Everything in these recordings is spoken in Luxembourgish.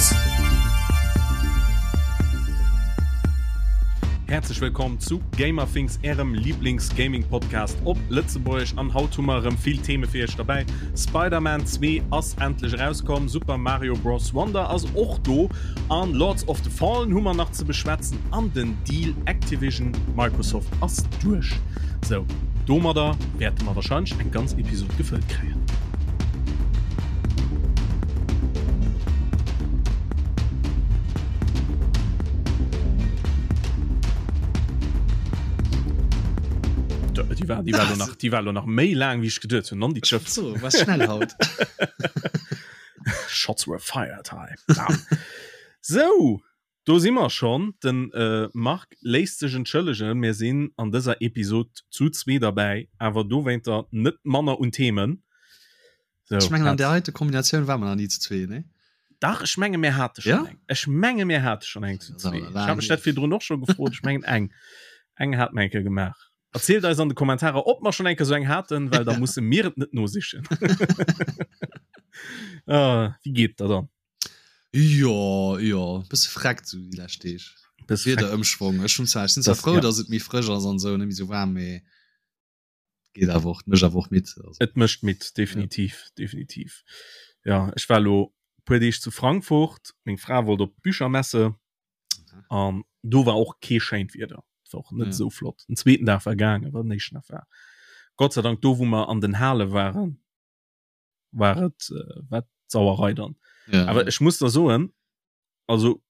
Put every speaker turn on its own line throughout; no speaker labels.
Gamerthings. Häerzlech wëllkomm zu Gamerthings, ärem Lieblings-Gaming-Podcast op Lëtzebuergesch. An haut hu mer erëm vill Theme fir iech derbäi. Spider-Man 2 ass endlech erauskomm, Super Mario Bros. Wonder ass och do an Lords of the Fallen hu mer nach ze beschwätzen an den Deal Activision Microsoft ass duerch. Sou, domadder wäerte mer wahrscheinlech eng ganz Episod gefëllt kréien. Déi war, déi war lo nach, déi war lo nach méi laang wéi ech geduet hunn. Non, déi Schëff.
So, was schnell haut.
Shots were fired hei. Sou, Do si mer schonn. Den Marc léisst sech entschëllegen, mir sinn an dëser Episod zu zwee derbäi, awer dowéinter net manner un Themen.
Sou, Ech mengen an där heite Kombinatioun war mer nach ni zu zwee, nee?
Dach, ech menge mir hate schonn eng. Ech menge mir hate schonn eng zu zwee. Ech hat mech dat virdrun och scho gefrot. Ech mengen eng, eng hate mer eng Kéier gemaach. Erzielt eis an de Kommentarer, ob mer schonn eng Kéier sou eng haten, well da musse mir et net nosichen. Ah, wéi geet der dann?
Jo, jo, bësse freckt sou déi lescht Deeg.
Bësse
freckt. Wiederëmschwong. Ech hunn zwar, ech sinn zwar frou, ja. datt et méi frësch ass an esou, net méi sou waarm, mee geet awer och, mécht awer och midd.
Also. Et mécht midd, definitiv, ja. definitiv. Ja, ech war lo puer Deeg zu Frankfurt, meng Fra wollt op d'Büchermesse an do war och kee schéint Wieder. Et war och net ja. sou flott. Den zweeten Dag war gaangen, awer den éischten Dag war Gott sei Dank do, wou mer an den Hale waren, war et äh, wat Sauerei dann. Ja. Aber ech muss da soen, also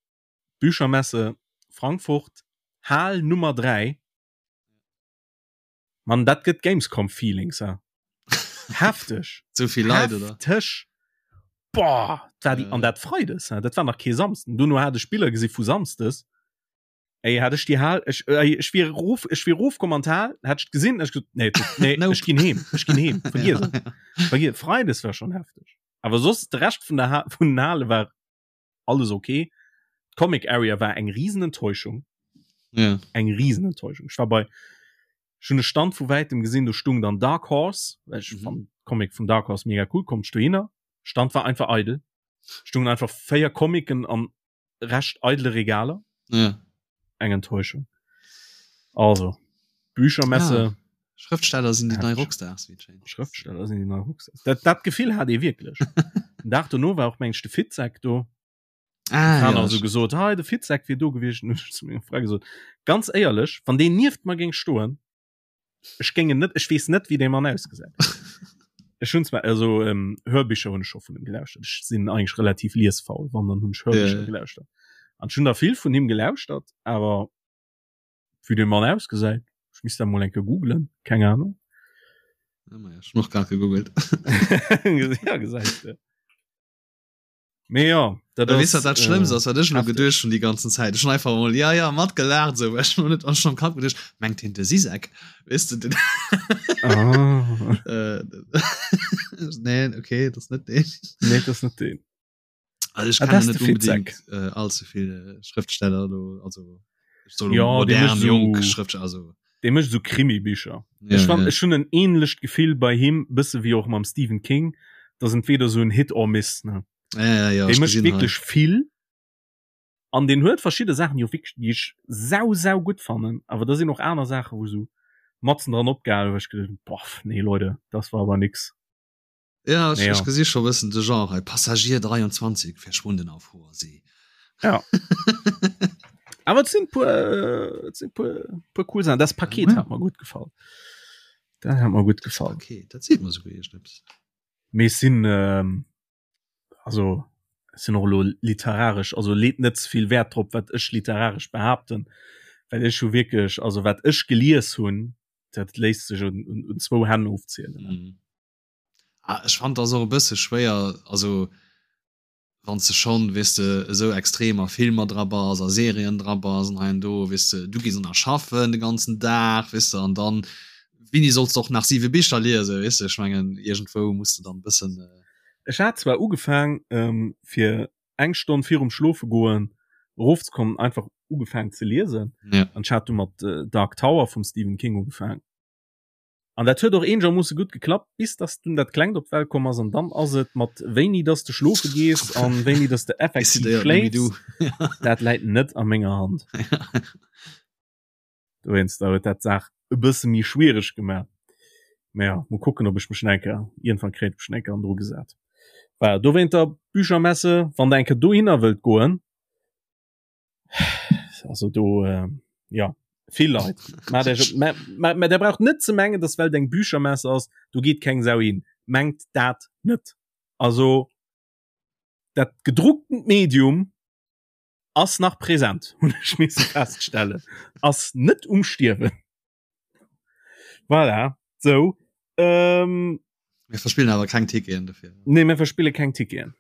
Büchermesse Frankfurt, Hal Nummer 3, Man dat gëtt Gamescom Feelings ja. Hefteg.
Zu viel Leit oder?
Hefteg. Boah, war die, ja. an dat Freides, dat war nach kee Samsden. Dono hat ech Biller gesi vu Samsdes. Ey, hat ech die Hal, ech, ey, ech wier rof, ech wier rofkomm an d'Hal, hätt ech gesinn, ech gesot, nee, nee, nope. ech ginn heem, ech ginn heem, vergiess et. Vergiess, Freides war schon hefteg. Awer soss, de Rescht vun der ha vun den Hale war alles okay. D'Comic Area war eng riesen Enttäuschung.
Ja.
Eng riesen Enttäuschung. Ech war bei, ech hunn e Stand vu wäitem gesinn, do stung dann Dark Horse, well ech mhm. fand Comic vun Dark Horse mega cool, kommt dohinner. Stand war einfach eidel. Stungen einfach véier Comicen an recht eidele Regaler.
Ja.
Eng Enttäuschung. Also, Büchermesse.
Ja. Schrëftsteller sinn déi nei Rockstars,
wéi et schéint. Schrëftsteller sinn déi nei Rockstars. Dat, dat Gefill hat ee wierklech. Den Dag dono war och meng ech de Fitzek do.
Ah,
ja. Also gesot, hei de Fitzek wier do gewiescht. Hun ech zu menger Fra gesot, ganz éierlech, wann deen nieft mer géing stoen, Ech géing en net, ech weess net, wéi dee Mann ausgesäit. Ech hunn zwar, also ähm, Hörbicher hunn ech scho vun him gelauschtert. Ech sinn eigentlech relativ liesfaul, wann dann hunn ech Hörbicher yeah. gelauschtert. An ech hunn der vill vun him gelauschtert, awer wéi dee Mann ausgesäit, ech misst dat mol eng Kéier googlen, keng Ahnung.
Ja, ma ja, ech hunn och grad gegoogelt.
ja, gesäis de. Mee ja,
dat ass. Weess wat dat Schlëmmst ass, wat ech elo geduecht hunn déi ganzen Zäit? Ech hunn einfach emol ja, ja matgelaacht esou, well ech hunn net an am Kapp geduecht, mengt hien de Zizek? Weess de den.
Ah.
Äh, nee, okay, dat ass net deen.
Nee, dat ass net deen.
Also ech kennen net unbedingt äh, allze vill äh, Schrëftsteller do, also
so ja,
modern, so, jonk Schrëftsteller, also.
Dee mécht esou Krimi-Bicher. Ja, ech fand, ja. ech hunn en ähnlecht Gefill bei him, bësse wéi och mam Stephen King, dass entweder sou en Hit or Miss, ne?
Ja, ja, ja,
Dee mécht wierklech vill an deen huet verschidde Saachen, déi och wierklech, déi ech sau, sau gutt fannen, awer da sinn och aner Saachen, wou sou matzen dran opgehal, wou ech geduecht hunn, boah, nee Leute, das war aber nix.
Ja, ech, ech gesi scho bëssen de Genre hei. Passagier 23 verschwunden auf hoher See.
Ja. Awer et sinn puer, äh, et sinn puer, puer cool Sachen. Das Paket ja. hat mir gut gefallen. Dat hat mir gut gefallen.
Paket, dat seet mir souguer iergendeppes.
Mee es sinn, ähm, also es sinn och elo literaresch, also leet net ze vill Wäert drop, wat ech literaresch behaapten, well ech hu wierklech, also wat ech gelies hunn, dat léisst sech un, un, un zwou Hänn ofzielen.
Mhm. Ah, ech fand das och e bësse schwéier, also wann s de schonn, weess de, esou extrem a Filmer dra bass, a Serien dra bass an hei an do, weess de, du gees och nach schaffen de ganzen Dag, weess de, an dann, wéini solls de och nach siwe Bicher liesen, weess de, ech mengen, iergendwou muss de dann e bëssen.
Ech hat zwar ugefaang, fir eng Stonn virum Schlofegoen erofzekommen, einfach ugefaang ze liesen,
Ja.
an ech hat du mat Dark Tower vum Stephen King ugefaang. An dat huet och eenegermoosse gutt geklappt, bis dass dunn dat Klengt op d'Welt komm ass. An dann ass et mat wéini dass de schlofe gees an wéini dass de effektiv schléifs, dat läit net a menger Hand. Dowéinster huet dat d'Saach e bësse méi schwiereg gemaach. Mä ja, mol kucken, ob ech mech nach eng Kéier, iergendwann kréien ech mech nach eng Kéier an dru gesat. Voilà, dowéinter Büchermesse, wann der eng Kéier dohinner wëllt goen, also do äh, ja vill Leit ma der, ma, ma, ma der braucht net ze mengen dass well eng Büchermesse ass do geet keng Sau hin mengt dat net also dat gedruckten Medium ass nach präsent hunn ech misse feststellen ass net um Stierwen Voilà, so.
Ähm, mir verspillen awer keng Ticketen
dofir. Nee, mir verspille keng Ticketen.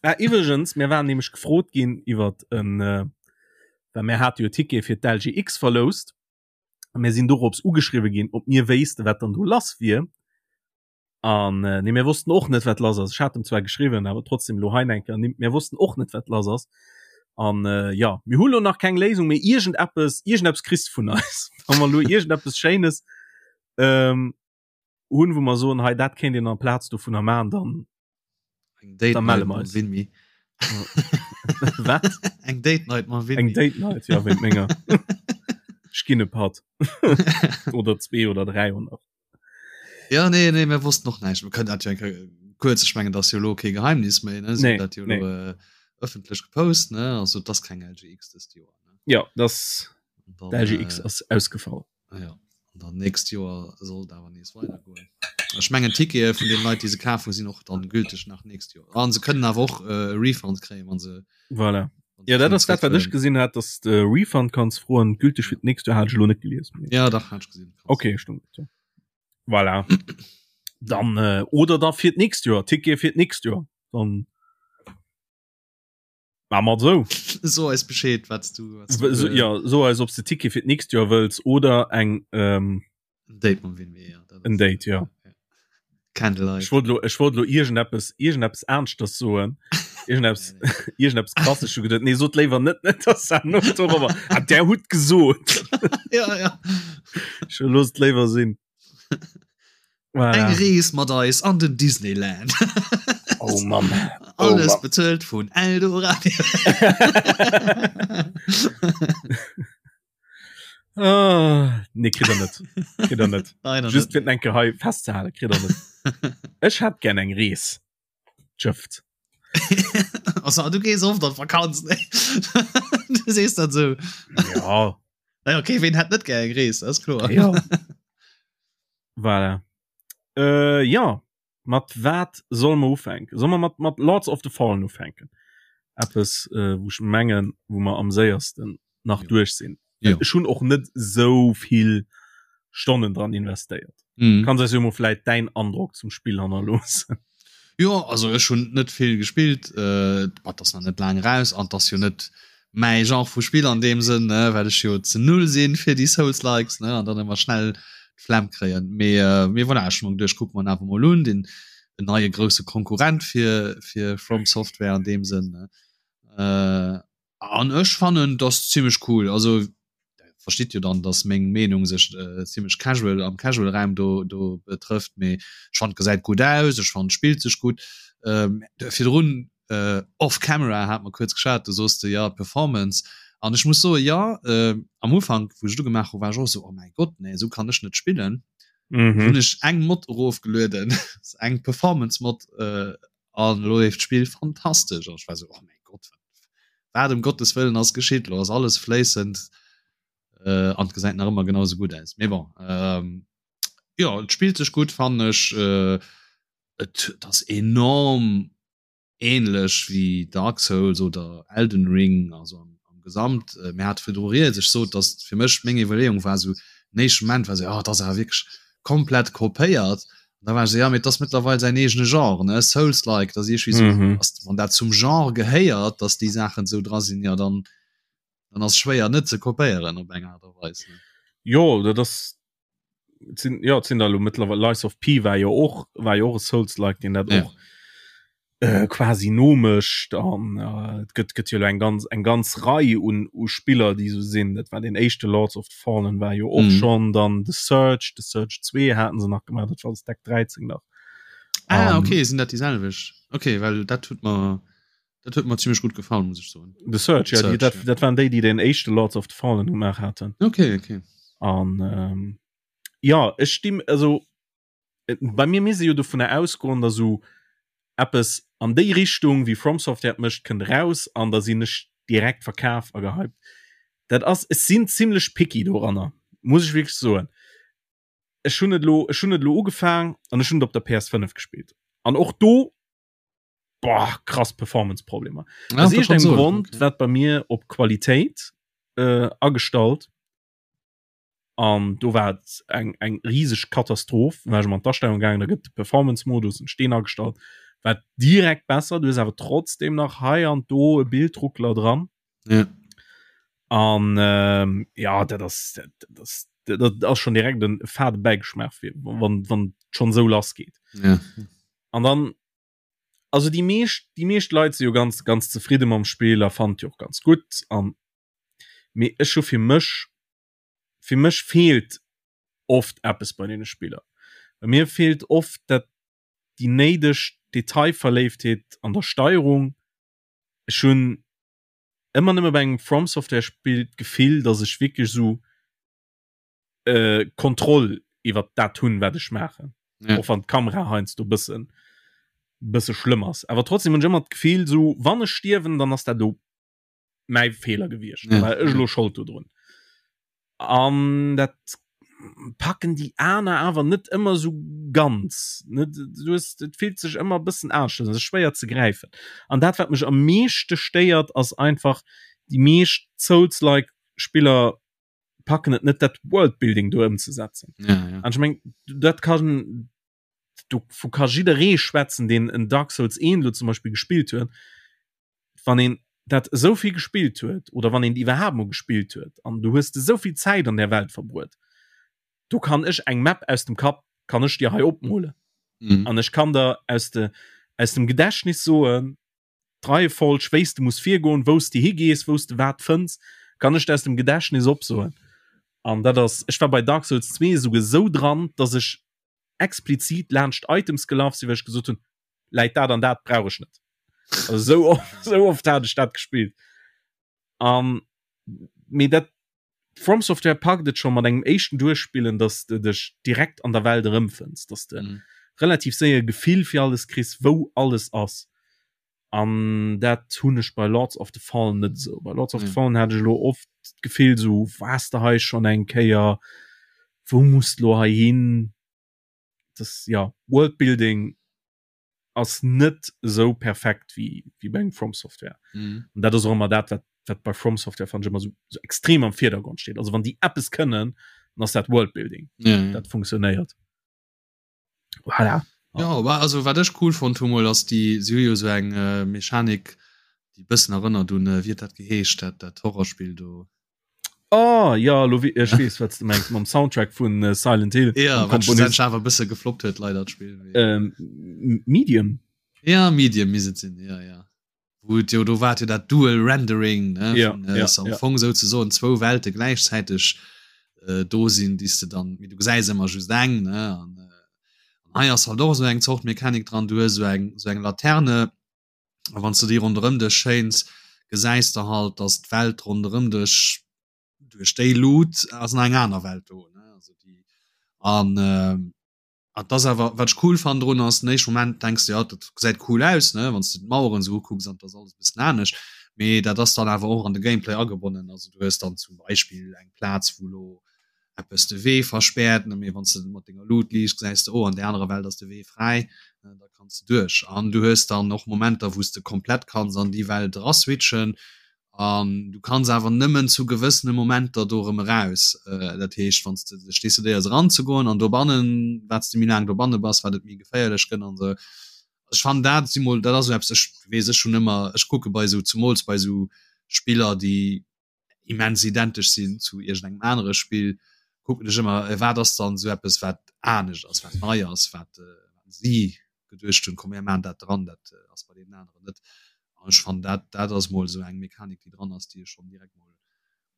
Ah, iwwregens, mir waren nämlech gefrot ginn iwwer en, äh, well mir hate jo Tickete fir d'LGX verloust. A mir sinn dorops ugeschriwwe ginn, ob mir wéisste wat dann do lass wier. An äh, nee, mir wossten och net, wat lass ass. Ech hat em zwar geschriwwen, awer trotzdem lo hei eng Kéier ernimmt, mir wossten och net, wat lass ass. An äh, ja, mir hu lo nach keng Léisung, mee iergendeppes, iergendeppes kriss de vun eis. Wa mer lo iergendeppes Schéines ähm, hunn, wou mer soen, hei dat kéint een amplaz dovunner maachen, dann
Eng Date
Da melle
Night
mer
mam
eis.
Winmi.
Wat?
Eng Date Night mam
Eng
Winmi.
Date Night, ja, wéint menger. Ech ginn e Patt. Oder zwee oder 300.
Ja, nee, nee, mir wossten och näischt. Mir kënnen dat jo eng Kéier kuerz, ech mengen, dat ass jo elo kee Geheimnis méi, ne? Si
Nee,
hunn dat jo
nee.
elo äh, ëffentlech gepost, ne? Also, et ass keng LGX dëst Joer, ne?
Ja, das
An dann,
LGX
äh,
ass ausgefall.
Ah ja, an dann nächst Joer soll et awer nees weidergoen. Ech mengen d'Tickete vun den Leit, déi se kaf hunn, sinn och dann gülteg nach nächst Joer. An se kënnen awer och äh, e Refund kréien, wann se
Voilà.
wann se
Ja, dat
kënnen
ass dat, wat ech
zréckhuelen.
gesinn hat, dass de Refund kanns froen, gülteg fir d'nächst Joer hat ech elo net gelies. Mee
Ja, dach, hat ech gesinn. Kanns.
Okay, stimmt. Ja. Voilà. Dann äh, oder da fir d'nächst Joer, Ticket fir d'nächst Joer. Dann Maa mer sou.
So eis Bescheed, wat du, wat du
so,
äh,
ja, so eis ob du Ticket fir d'nächst Joer wëlls oder eng ähm,
en Date mam Winmi, ja.
En Date, ja.
ja. Candlelight.
Ech wollt lo, ech wollt lo iergendeppes, iergendeppes Aneschters soen. Iergendeppes, iergendeppes krasses schon geduet. Nee, sot léiwer net, net, dass dat no dorobber. Ah, der hutt gesot.
ja, ja.
Ech looss et léiwer sinn.
Voilà. Eng Rees mat eis an den Disneyland.
Oh Mann.
Oh Alles Mann. bezuelt vun Eldoradio.
ah, nee, kritt er net. Kritt er net.
Leider
Just
net.
fir enke hei festzehalen, kritt er net. Ech hätt gern eng Rees. Tschëfft.
Also, du gees oft an Vakanz, ne? Du sees dat sou.
Ja.
Naja, okay, wen hätt net gär eng Rees, dat ass kloer.
Ja. Voilà. Äh, ja, mat wat soll mer ufänken? Soll mer mat, mat Lords of the Fallen ufänken? Eppes, äh, wou ech mengen, wou mer am séiersten nach
Jo.
duerch sinn.
Jo.
Ech hunn och net sou vill Stonnen dran investéiert.
Mhm.
Kanns eis jo mol vläit däin Androck zum Spill hannerloossen.
Jo, also ech hunn net vill gespillt, äh, et ass nach net laang eraus an et ass jo net mäi Genre vu Spill an deem Sënn, ne, well ech jo ze null sinn fir déi Souls-likes, ne, an dann ëmmer schnell d'Flemm kréien. Mee, äh, mee voilà, ech hu mer geduecht, kucke mer en awer mol un, deen en neie grousse Konkurrent fir, fir From Software an deem Sënn, ne. Äh, An ech fannen dass zimmlech cool. Also versteet jo dann, dass meng Meenung sech äh, zimmlech casual am casual Raum do do betrëfft, mee ech fand gesäit gutt aus, ech fand spillt sech gutt. Ähm, virdrun äh, off camera hat mer kuerz geschwat, du soos de ja Performance an ech muss soe ja äh, am Ufank wou ech et ugemaach hu war ech och esou oh mäi Gott nee esou kann ech net spillen.
Mhm.
Hunn ech eng Mod erofgelueden, eng Performance Mod äh, An elo leeft d'Spill fantastesch an ech war sou, oh mäi Gott, wat ëm Gottes wëllen ass geschitt? Elo ass alles fléissend äh, an et gesäit nach ëmmer genau sou gutt aus. Mee bon, ähm, jo, et spillt sech gutt fannen ech. Äh, et, et ass enorm ähnlech wéi Dark Souls oder Elden Ring, also am, am Gesamt. Äh, mir hate virdru rieds, ech sot, datt fir mech meng Iwwerleeung war sou, den éischte Moment war sou, oh, et ass awer wierklech komplett kopéiert. An da war ech sou, ja, mee et ass mëttlerweil säin eegene Genre, ne, Souls-like, dat ass iergendwéi sou,
Mhm.
ass, wann dat zum Genre gehéiert, datt déi Saachen sou dra sinn, ja, dann, dann ass schwéier net ze kopéieren op eng Aart a Weis, ne.
Jo, dat ass, et sinn, jo, et sinn der elo mëttlerweil, Lies of P war jo och, war jo och e Souls-like, deen dat
Ja.
och. Äh, quasi nomécht an äh, et gëtt gëtt jo eng ganz eng ganz Rei un u Spiller déi sou sinn. Dat war den éischte Lords of the Fallen war jo och mm. schon dann The Search, The Search 2 haten se nach gemaach, dat war Deck 13 nach.
Ah, um, okay, sinn dat déi selwecht? Okay, well dat huet mer dat huet mer ziemlich gut gefallen muss ich soen.
The Search, ja, Search, die, dat, ja. dat waren déi, déi den éischte Lords of the Fallen gemaach haten.
Okay, okay.
An ähm, ja, ech stimm also bei mir misst ee jo dovunner ausgoen, datt esou eppes an déi Richtung wéi From Software et mécht kënnt eraus an da sinn ech direkt verkaf a gehypt. Dat ass, ech sinn zimlech picky doranner, muss ech wierklech soen. Ech hunn et elo, ech hunn et elo ugefaang an ech hunn et op der PS5 gespillt an och do, boah, krass Performance-Problemer. Ja, Aus iergendengem Grond okay. wat bei mir op Qualitéit äh, agestallt an do war et eng eng rieseg Katastroph war ech an d'Astellung gaangen, da gëtt de Performance-Modus en Steen agestallt, war direkt besser, du hues awer trotzdem nach hei an do e Bildruckler dran.
Ja.
An ähm, ja dat ass dat ass dat ass schon direkt en fade Bäigeschmaach fir wann wann schon sou lass geet.
Ja.
An dann also déi meescht déi meescht Leit si jo ganz ganz zefridde mam Spill a fand jo och ganz gutt an mee ech hu fir mech fir mech feelt oft eppes bei deene Spiller. Bei mir feelt oft dat déi néideg Detailverléiftheet an der Steierung. Ech hunn ëmmer nëmme bei engem From Software Spill d'Gefill, datt ech wierklech esou äh, Kontroll iwwer dat hunn, wat ech maachen. Ja. Och wann d'Kamera heiansdo bëssen bësse schlëmm ass. Awer trotzdem hunn ech ëmmer d'Gefill, esou wann ech stierwen, dann ass dat do mäi Feeler gewiescht ja. war ech lo Schold dodrun an dat packen déi aner awer net ëmmer so ganz net du hast, et fillt sech ëmmer bëssen anescht un, schwéier ze gräifen an dat wat mech am meeschte stéiert ass einfach déi meescht Souls-like Spiller packen et net dat Worldbuilding do ëmzesetzen
ja, ja.
an ech meng dat kann dovu ka jidderee schwätzen, deen en Dark Souls 1 lo zum Beispill gespillt huet, wann een dat esou vill gespillt huet oder wann een iwwerhaapt mol gespillt huet an du hues esou vill Zäit an där Welt verbruet, do kann ech eng Map aus dem Kapp kann ech dir hei opmolen
mhm.
an ech kann der aus de aus dem Gedächtnis soen, d'Reiefolg, wéi s de muss virgoen, wou s de higees, wou s de wat fënns, kann ech der aus dem Gedächtnis opsoen. An dat ass, ech war bei Dark Souls 2 esouguer esou dran, dass ech explizit laanscht Items gelaf sinn, well ech gesot hunn, läit dat an dat brauch ech net. Also esou oft, esou oft hat ech dat gespillt. An mee dat From Software packt et scho mat engem éischten Duerchspillen, dass de dech direkt an der Welt erëmfënns, dass de mm. relativ séier Gefill fir alles kriss, wou alles ass. An dat hunn ech bei Lords of the Fallen net esou. Bei Lords of mm. the Fallen hat ech lo oft d'Gefill so waars de hei schon eng Kéier, wou muss lo hei hin? Das ja Worldbuilding ass net esou perfekt wéi wéi bei engem From Software.
Mhm.
An dat ass och ëmmer dat, wat wat bei From Software fand ech ëmmer so, so extrem am Virdergrond steet. Also wann déi eppes kënnen, dann ass dat Worldbuilding.
Ja, ja.
Dat funktionéiert. Voilà.
Ja, aber also wat ech cool fonnt hu mol ass déi si hu jo sou eng äh, Mechanik déi bëssen erënnert un äh, wéi huet dat geheescht dat dat Horrorspill do.
Oh ja lo ech weess wat du mengs mam Soundtrack vun äh, Silent Hill
ja, Komponist awer bësse gefloppt huet leider d'Spill.
Ähm, Medium
Ja Medium misst et sinn ja ja. Wou et jo do war jo dat Dual Rendering ne
ja,
vun, äh,
ja,
am
ja.
Fong souzesoen zwou Welte gläichzäiteg äh, do sinn, déi s de dann mee du gesäis ëmmer just eng ne an äh, hei ass halt och esou eng Zort Mechanik dran, du hues esou eng esou eng Laterne a wann s de déi ronderëm dech schéins, gesäis de halt, dass d'Welt ronderëm dech duerch déi Lut ass nach eng aner Welt do ne also déi an äh, An das awer wat ech cool fannen drun ass, den éischte Moment denks de, jo dat gesäit cool aus ne, wann s de d'Maueren esou ukucks an dat ass alles e bëssen anescht, mee dat ass dann awer och an de Gameplay agebonnen. Also du hues dann zum Beispill eng Plaz wou lo eppes de Wee verspäert ne, mee wann s de mat denger Lut liichts gesäis de, oh an där anerer Welt ass de Wee fräi, da kanns de duerch. An du hues dann och Momenter wou s de komplett kanns an déi Welt eraswitchen An du kanns awer nëmmen zu gewëssene Momenter do erëm eraus. Dat heescht, wann s de dech decidéiers eranzegoen an dobannen, wat s de méi laang dobanne bass, wat et méi geféierlech gëtt an esou. Ech fannen dat si mol, dat ass esou eppes, ech weess, ech hunn ëmmer, ech kucke bei esou, zemools bei esou Spiller, déi immens identesch sinn zu iergendengem anere Spill, kucken ech ëmmer, wat ass dann esou eppes, wat anescht ass, wat nei ass, wat si. geduecht hunn, komm mir maachen dat dran, dat ass bei deenen aneren net. An ech fannen dat dat ass mol esou eng Mechanik déi dran ass, déi ech schonn direkt mol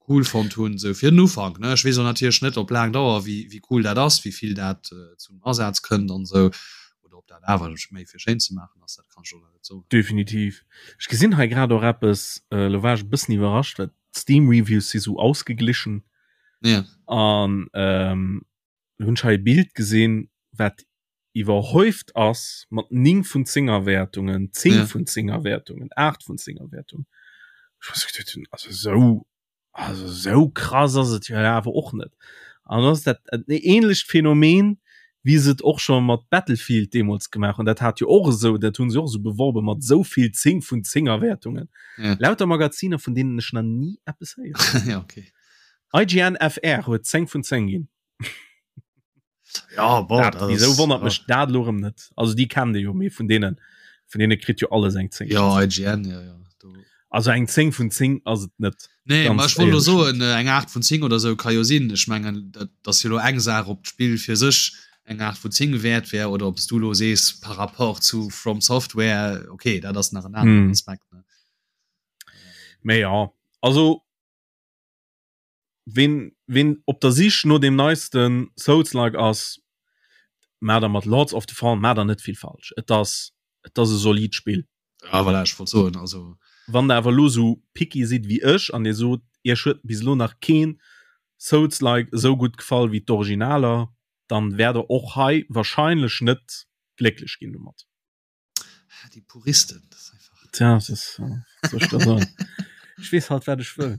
cool fonnt hunn, esou fir den Ufank ne. Ech weess och natierlech net op laang Dauer wéi wéi cool dat ass, wéi vill dat zum Asaz kënnt an esou, oder ob dat awer méi fir schéin ze maachen ass, dat kann ech och nach net soen.
Definitiv. Ech gesinn hei grad och eppes, elo war ech e bëssen iwwerrascht, well d'Steam Reviews si sou ausgeglichen.
Ja.
An ähm, hunn ech hei e Bild gesinn, wat iwwerhäuft ass mat 9 vun 10er Wäertungen, 10 ja. vun 10er Wäertungen, 8 vun 10er Wäertungen. Also sou also sou krass ass et jo awer och net. An ass dat e ähnlecht Phänomen, wéi se et och scho mat Battlefield deemools gemaach hunn. Dat hat jo och esou, dat hunn se och esou beworbe mat esou vill 10 vun 10er Wäertungen. Ja. Lauter Magaziner, vun deenen ech nach ni eppes
héieren. ja, okay.
IGN FR huet 10 vun 10 ginn.
Ja,
bon, dat, wieso wonnert ja. mech dat lo rem net also die kennen jo méi vun denen vun denen kritt jo alles eng
10 ja IGN ja, ja.
Du. also eng 10 vun 10 ass et net
nee ma ech wollt so en äh, eng 8 vun 10 oder sou ka jo sinn ech mengen dat dat jo lo eng Saach op d'Spill fir sech eng 8 vun 10 wäert wär oder ob du lo sees par rapport zu From Software okay dat ass nach en aneren mm. Aspekt ne
Mee ja also Ween, ween op der Sich no deem neisten Souls-like ass, maacht der mat Lords of the Fallen maacht der net vill falsch. Et ass, et ass e solid Spill.
Ja, voilà, ech wollt soen, also.
Wann der awer elo sou picky sidd wéi ech an dir sot, iech huet bis elo nach keen Souls-like esou gutt gefall wéi d'Originaler, dann wäert der och hei wahrscheinlech net glécklech ginn domat.
Ah, die Puristen,
das ist einfach. Tja, das ist, äh, soll ich da sagen? Ich wees halt, wat ech wëll.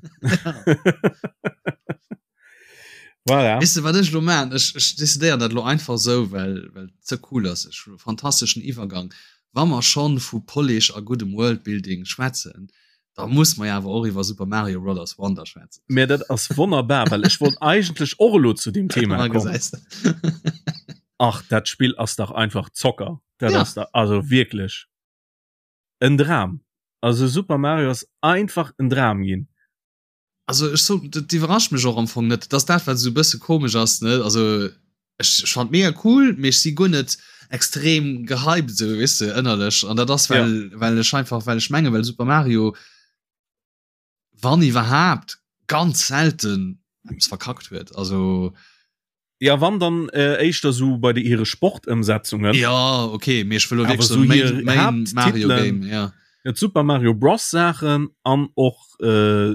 Voilà. Weißt du, wat ech lo man? Ech, ech decidéieren dat lo einfach sou, well, well et ze cool ass. Ech hu fantasteschen Iwwergang. Wa mer schon vu Polish a guddem Worldbuilding schwätzen, da muss mer jo awer och iwwer Super Mario Brothers Wonder schwätzen.
Mä dat ass wonnerbar, well ech wollt eigentlech och elo zu deem Thema kommen. Ach, dat Spill ass dach einfach Zocker. Dat ja. ass da, also wierklech en Dram. Also Super Mario ass einfach en Dram ginn.
Also ech so, dat iwwerrascht mech och am Fong net, dass dat wat esou bësse komesch ass ne also ech, ech fand mega cool, mee ech si guer net extrem gehypt esou weess de ënnerlech an dat ass well ja. well ech einfach well ech menge well Super Mario wann iwwerhaapt ganz selten eppes verkackt huet also
Ja wann dann äh, éischter so bei de hire Sportëmsetzungen.
Ja okay mee ech wëll
wierklech so main, main Mario Game ja. Ja, Super Mario Bros Saachen an och äh,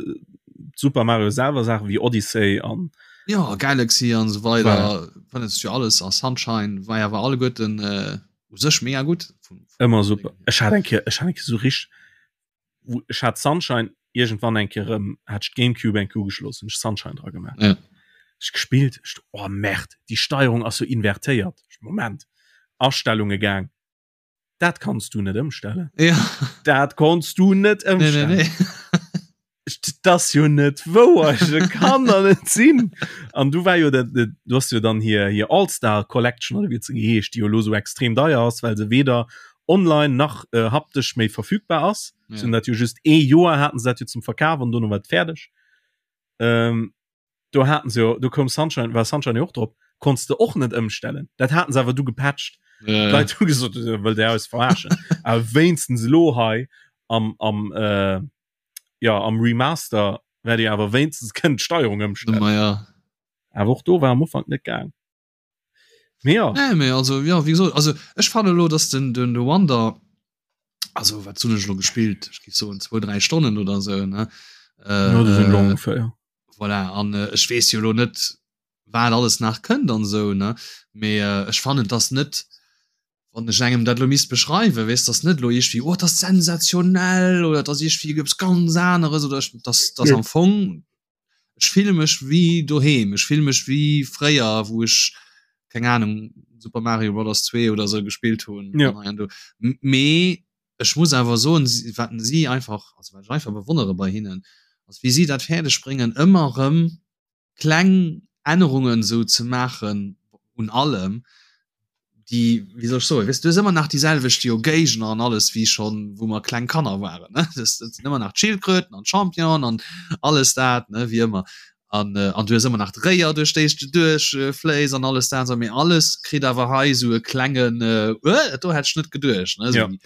Super Mario selwer Saachen wéi Odyssey an
ja Galaxy an so weider ja. jo alles a Sunshine war ja war alleguerten äh, u sech mega gutt
ëmmer super ech hat eng Kéier ech hat eng Kéier so richteg wou ech hat Sunshine irgendwann eng Kéier erëm hat ech d'Gamecube eng Kéier ugeschloss hunn ech Sunshine dra gemaach
ja.
ech gespillt ech oh Merde déi Steierung ass jo invertéiert ech Moment Astellunge gaang dat kanns du net ëmstellen
ja.
dat konns du net
ëmstellen nee, nee, nee.
Das jo net wouer kann der net sinn an du war jo dat du hast jo dann hier hier Allstar Collection oder wie ze geheescht die jo lo so extrem deier ass well se weder online nach äh, haptesch méi verfügbar ass ja. hun dat jo just ee Joer haten se dat jo zum Verkaf an dono war et fäerdeg ähm, do haten se jo do koum Sunshine war Sunshine jo och drop konntst de och net ëmstellen dat haten se awer du gepatcht
ja, ja.
Leit hu gesot wëll der eis verarschen awer wéinstens elo hei am am äh, ja am Remaster wäert Dir awer wéinstens kënnen d'Steierung ëmstellen.
Ma ja.
Awer och do war am Ufank net gaang. Mee ja.
Nee, mee also ja, wéi gesot, also ech fannen elo, dass den den de Wonder, also wat hunn ech elo gespillt, ech géif soen zwou, dräi Stonnen oder esou, ne?
Äh, ja, dat sinn elo ongeféier, ja.
Voilà, an äh, ech weess jo elo net, wat alles nach kënnt an esou, ne? Mee äh, ech fannen, dass net wann ech engem dat lo misst beschreiwen, weess, dass net lo iergendwéi, oh, dat ass sensationell oder dat ass iergendwéi eppes ganz aneres oder ech, dass, dass am Fong, ech fille mech wéi doheem, ech fille mech wéi fréier, wou ech, keng Ahnung, Super Mario Brothers 2 oder sou gespillt hunn
ja.
an hei an do. Mee ech muss awer soen, wat si einfach, also wat ech einfach bewonnere bei hinnen, ass wéi si dat fäerdeg bréngen, ëmmer erëm kleng Ännerungen esou ze maachen un allem, déi, wéi soll ech soen, weess du hues ëmmer nach déi selwecht jo Géigner an alles wéi schonn wou mer kleng Kanner waren ne, dat sinn ëmmer nach d'Schildkröten an d'Championen an alles dat ne wéi ëmmer. An, äh, an du hues ëmmer nach d'Réier duerch déi du duerch äh, fléis an alles dat, mee alles kritt awer hei sou e klengen äh, äh, do hätt ech net geduecht ne? So
ja.
die,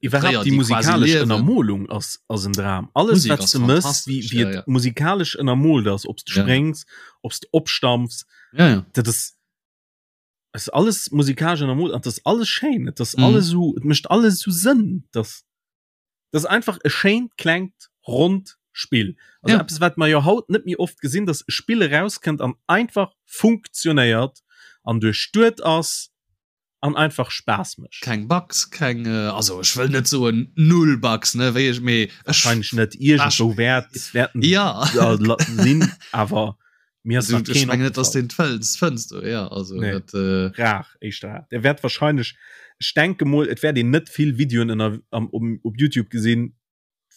Iwwerhaupt
die
musikalesch Ënnermolung ass ass en Dram. Alles
Musik
wat du mëss, wie, wie
ja, ja.
musikalesch ënnermolt ass, ob du
ja.
spréngs, ob du opstampfs,
ja, ja.
dat ass ass alles musikalesch ënnermolt an das alles schéin, et ass
mhm.
alles so, et mécht alles so Sënn, dass Das ass einfach e schéint klengt ronnt Spill. Also
ja.
eppes wat mer jo haut net méi oft gesinn, dass e Spill erauskënnt an einfach funktionéiert an duerchduet ass an einfach Spaass mécht.
Keng Bugs, keng äh, also ech wëll net soen null Bugs ne wéi ech mee ech
Wahrscheinlech net iergendwou wäert wäerten
ja
sinn awer mir ass
also,
nach
ech
keen
mengen net dass
opgefall.
den fënns fënns du ja also
Nee.
dat äh,
rar éischter rar. Der wäert wahrscheinlech ech denke mol et wäert een net vill Videoen ënner am um, op YouTube gesinn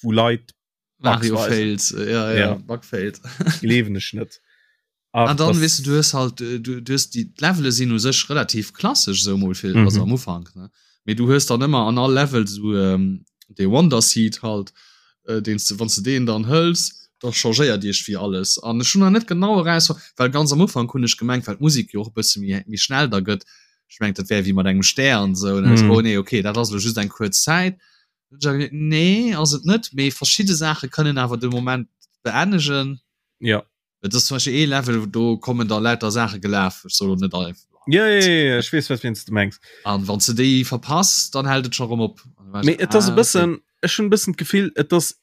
wou Leit Bugs
Mario
weisen.
Fails äh, ja, ja,
Ja.
Bug Fails
Gleewen ech net. Ach,
An dann
das-
weess du, du hues halt äh, du, du hues déi d'Levele sinn u sech relativ klassesch sou mol fir
Mhm.
also am Ufank ne mee du hues dann ëmmer an all Level sou ähm, dee Wonder Seed halt äh, deen s du wann s du deen dann hëls da changéiert iergendwéi alles an ech hunn nach net genau eraus well ganz am Ufank hunn ech gemengt well d'Musek jo och e bësse méi méi schnell da gëtt ech mengt dat wär wéi mat engem Stär an sou an dann
Mhm.
oh nee okay dat ass elo just eng kuerz Zäit nee ass et net mee verschidde Saache kënnen awer de Moment beennegen
Ja.
Et ass zum Beispill ee Level, do kommen da lauter Saache gelaf, ech soll lo net all.
Ja, ja, ja, ja, ech weess, wat wéinst du mengs.
An wann s de déi verpass, dann hält et scho rëm op.
Mee et ass e bëssen, ech hunn e bëssen d'Gefill, et ass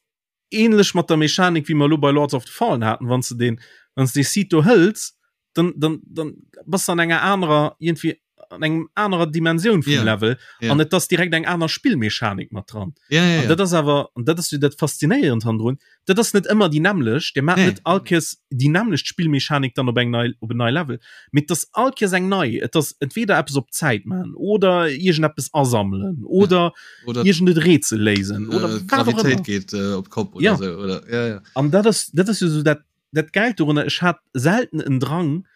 ähnlech mat der Mechanik, wéi mer elo bei Lords of the Fallen haten, wann s de deen, wann s de dee Seed do hëls, dann, dann, dann bass de an enger anerer, iergendwéi an engem anerer Dimensioun vum
yeah.
Level
yeah.
an et ass direkt eng aner Spillmechanik mat dran.
Yeah, yeah, yeah.
Dat ass awer an dat ass jo dat faszinéierend handrun. Dat ass net ëmmer déi nämmlecht, Dir maacht
nee.
net all Kéiers déi nämmlecht Spillmechanik dann op eng nei op en nei Level. Mee et ass all Kéiers eng nei. Et ass entweder eppes op Zäit maachen oder iergendeppes asammelen oder,
ja. oder
iergend et Rätsel léisen oder
äh,
wat och ëmmer.
Gravitéit geet äh, op d'Kopp oder
Ja.
sou oder ja, ja.
An dat ass dat ass jo sou dat dat Gäilt dorunner. Ech hat selten en Drang,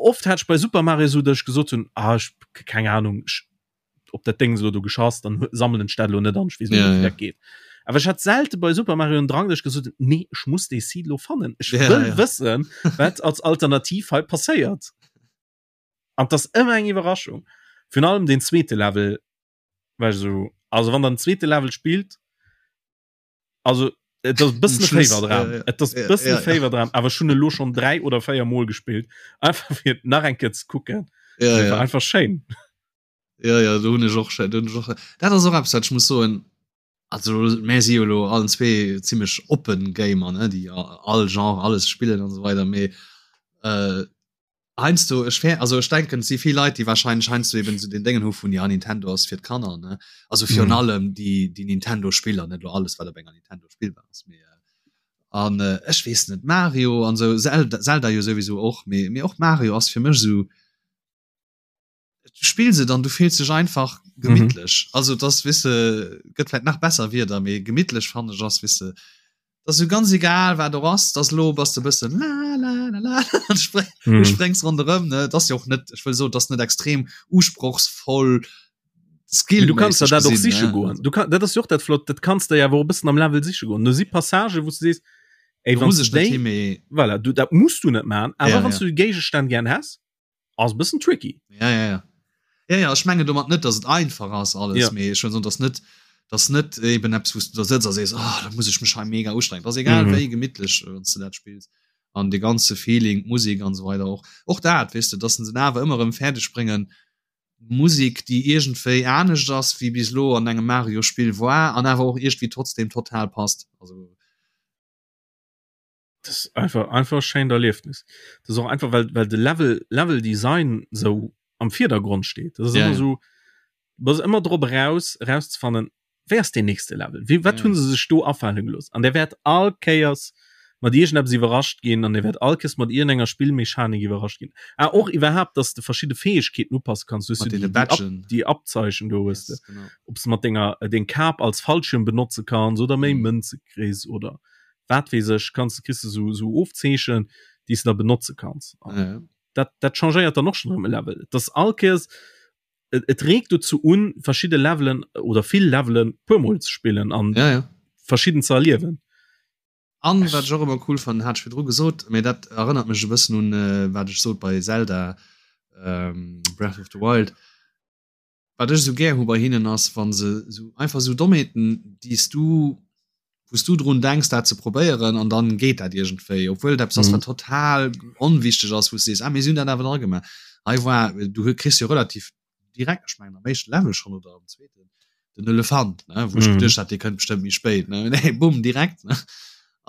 oft hat ech bei Super Mario sou, datt ech gesot hunn, ah ech keng Ahnung, ech op dat Ding elo do geschass, dann sammelen ech dat elo net an, ech weess net,
Ja,
wéi
ja.
dat geet. Awer ech hat selte bei Super Mario en Drang, datt ech gesot hunn, nee, ech muss dee Seed elo fannen. Ech
Ja,
wëll
ja.
wëssen, wat als Alternativ hei passéiert. An 't ass ëmmer eng Iwwerraschung. Virun allem deen zweete Level war ech esou, also wann der den zweete Level spillt, also et ass bëssen e Féiwerdram et ass bëssen e Féiwerdram awer ech hunn elo schonn 3 oder 4 mol gespillt einfach fir nach eng Kéier ze kucken
ja, ja.
einfach schéin
ja ja do hunn ech och do hunn ech och dat ass och eppes wat ech muss soen also mär si jo elo allen zwee zimmlech oppen Gamer ne déi all Genre alles spillen an esou weider mee äh, Heiansdo, ech fär, also ech denken, et si vill Leit, déi wahrscheinlech heiansdo eben esou den Déngen hu vun, ja, Nintendo ass fir d'Kanner, ne? Also virun
Mhm.
allem déi, déi Nintendo-Spiller, net elo alles, wat op enger Nintendo spillbar ass, mee an ech weess net, Mario an esou, Zelda, Zelda jo souwisou och, mee, mee och Mario ass fir mech esou, du spills et an du fills dech einfach gemittlech. Mhm. Also das weess de, gëtt vläicht nach besser Wierder, mee gemittlech fannen ech ass, weess de, das so ganz egal wat do ass, das lo bass de bëssen la la la la an spre mhm. du sprengs ronderëm ne, das jo och net, ech wëll so, das net extrem usprochsvoll
Skill. Du kannst dat och siche goen. Du kann, dat ass jo och dat flott, dat kannst de ja awer och bëssen am Level siche goen. Do si Passage wou du sees, ey, wann du déi, voilà, du, dat musst du net man, awer
ja,
wann
ja.
du Géigestänn gern häss, ass bëssen tricky.
Ja, ja, ja. Ja, ja, ech mengen domat net, dass et einfach ass alles,
Ja.
mee ech wëll soen, dass net, dass net eben eppes, wou s du da sëtz a sees, oh, da muss ech mech hei mega ustrengen. Ass egal
Mhm.
wéi gemittlech, wann s du dat spills. An de ganze Feeling, d'Musek an esou weider och. Och dat, weess de, dass se en awer ëmmer erëm fäerdeg bréngen, Musek, déi iergendwéi anescht ass, wéi bis elo an engem Mario-Spill war, an awer och iergendwéi trotzdem total passt. Also.
Das ist einfach einfach schéint Erliefnis. Das ist och einfach well well de Level Level Design sou am Virdergrond steet. Das ist
Ja,
ëmmer
ja.
sou bass ëmmer drop eraus erauszefannen, wéi ass deen nächste Level? Wéi wat
Ja,
hunn
ja.
se sech do afale gelooss? An der wäert all Kéiers mat iergendeppes iwwerrascht ginn an der wäert all Kéiers mat iergendenger Spillmechanik iwwerrascht ginn. Ah och iwwerhaapt, dass de verschidde Fäegkeeten upasse kanns. Du hues
Mat
jo
deene
déi déi Ab
Badgen.
déi Abzeichen do hues de.
Yes, genau.
Ob s de mat denger deng Kap als Fallschirm benotze kanns oder méi
Mhm.
Mënze kriss oder wat weess ech, kanns de kriss de sou sou Ofzeechen, déi s de da benotze kanns. An
Ja, ja.
dat dat changéiert dann och schonn erëm e Level. Et ass all Kéiers et, et reegt dozou un, verschidde Levelen oder vill Levelen puermol ze spillen an
Ja, ja.
verschidden ze erliewen.
An wat ech och ëmmer cool fannen, hat ech virdru gesot, mee dat erënnert mech e bëssen un wat ech sot bei Zelda Breath of the Wild, wat ech esou gär hu bei hinnen ass, wa se esou einfach esou Dommheeten, déi s du, wou s du drun denks dat ze probéieren an dann geet dat iergendwéi, obwuel et eppes ass wat total onwichteg ass, wou s du sees, ah mee si hunn dat awer dra gemaach. Hei war, du kriss jo relativ direkt, ech mengen am éischte Level schonn oder am zweeten, den Elefant, ne, wou ech geduecht hat, dee kënnt bestëmmt méi spéit, ne, nee, bumm, direkt, ne.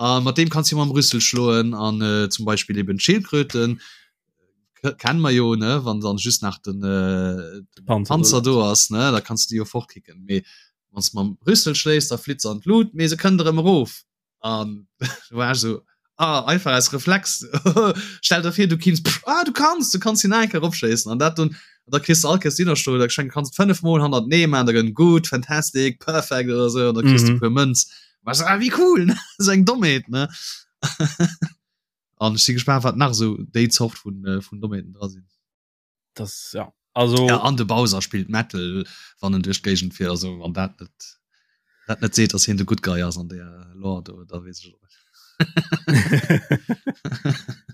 A mat deem kanns du mam Rüssel schloen an äh, zum Beispill eben d'Schildkröten kennen mer jo, ne, wann dann just nach den, äh, den Panzer, Panzer do ass, ne, da kanns du déi jo fortkicken. Mee wann s mam Rüssel schléis, da flitt se an d'Lut, mee se kënnt erëm erof. An du war so ah, einfach als Reflex stell der vir du kinns ah, du kannst du kannst hin enke opschéissen an dat und da kriegst du all Kéiers Dinnerstuhl da schenk kannst fünf Mol hannert nee man da gënn gut fantastic perfect oder so da kriegst du mhm. puer Mënz was ah, wie cool ne so eng Dommheet ne an ech si gespannt wat nach so déi Zort vun äh, vun Dommheeten dra sinn
das ja also
ja, an de Bowser spielt Metal wann en duerch d'Géigend fiert also wann dat net dat net seet dass hien de good guy ass an der Lore do da weess ech och net.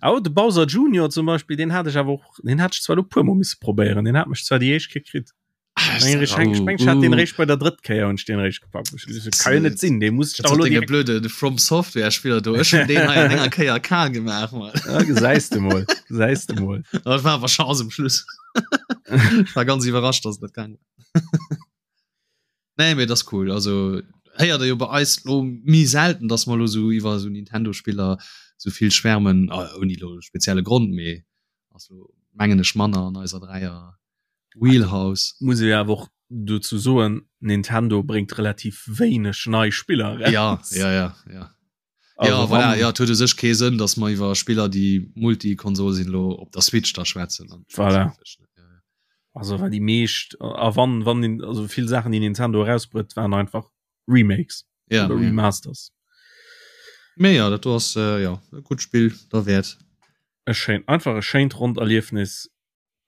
Oh, de Bowser Junior zum Beispiel den hat ech awer och den hat ech zwar lo puer mol misse probéieren den hat mech zwar déi éischt Kéier kritt Ech hat den réischt bei der drëtt Kéier hunn ech den réischt gepackt. Kann jo net sinn, dee muss ech
dach elo direkt. Blöde de From Software Spiller do ech hunn deen hei an enger Kéier kal gemaach
Mann. Ja, gesäis de mol, gesäis de mol.
Dat war awer Chance um Schluss. Ech war ganz iwwerrascht, dass dat gaang war. Nee, mee dat ass cool. Also héiert der jo bei eis lo méi selten, dass mer lo sou iwwer sou Nintendo Spiller sou vill schwärmen, ouni lo spezielle Grond, mee ass lo mengen ech manner an eiser Dräier Wheelhouse.
Muss ee awer och dozou soen, Nintendo bréngt relativ wéineg nei Spiller
eraus. Ja, ja, ja, ja. Also ja, voilà, ja, et huet u sech kee Sënn, datt mer iwwer Spiller, déi Multikonsol sinn, lo op der Switch da schwätzen.
Voilà. Ja, ja. Also well déi meescht a wann wann also vill Saachen déi Nintendo erausbrëtt, waren einfach Remakes
ja,
oder
ja.
Remasters.
Mee ja, dat do ass äh, ja, e gutt Spill derwäert.
E schéin einfach e schéint ronnt Erliefnis.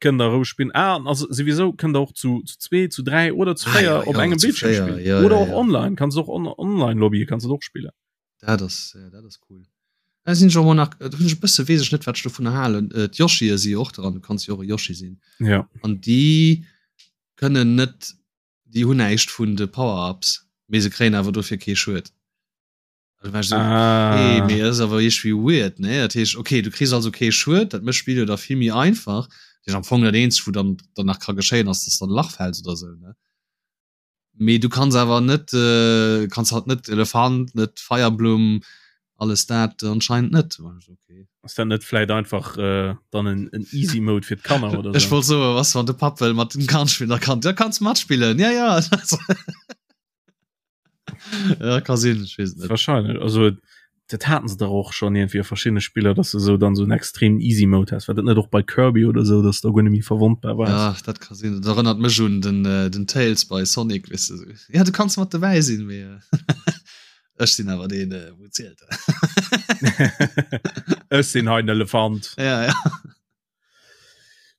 Kënnt der roueg spillen. Ah, an also souwisou kënnt der och zu, zu zwee, zu dräi oder zu
Ah,
véier
ja,
op
ja,
engem
zu
Bildschirm
véier,
spillen.
ja,
Oder
ja,
och
ja.
online, kanns och on online Lobby kanns du och spillen.
Dat ass, ja, dat ass cool. Da sinn ech och mol nach, do hunn ech e bësse, weess ech net, wat ech dovunner halen. Äh, D'Yoshie si jo och dran, du kanns jo och e Yoshi sinn.
Ja.
An déi kënnen net, déi hunn näischt vun de Power-Ups, mee se kréien awer dofir kee Schued. Da war ich so,
ah.
okay, mee ass awer iergendwéi weird, ne? Dat heescht, okay, du kriss also kee Schued, dat mécht d'Spill jo da vill méi einfach. Dat heescht, am Fong dat eenzegt, wou dann, dann nach ka geschéien, ass, dass du an e Lach fäls oder sou, ne? Mee du kanns awer net, äh, kanns halt net Elefant, net Feierblumm, alles dat anscheinend net. War ich so, okay.
Ass dat net vläit einfach äh, dann en, en Easy Mode fir d'Kanner oder
Ech
sou?
wollt soen, was wann de Papp wëll mat dem Kand spillen, da kann, da kanns matspillen, ja, ja. ja, ka sinn, ech weess et net.
Wahrscheinlech also dat haten se dach och schon irgendwie a verschiedene Spiller, dass du so dann so en extrem easy Mode hast. War dat net och bei Kirby oder so, dass du guer net méi verwondbar
wars? Ja, dat ka sinn. Dat erënnert mech un den, äh, den Tails bei Sonic, weess de. Ja, du kanns mat dobäi sinn, mee äh, ech sinn awer deen, äh, wou zielt.
Ech sinn hei den Elefant.
Ja, ja.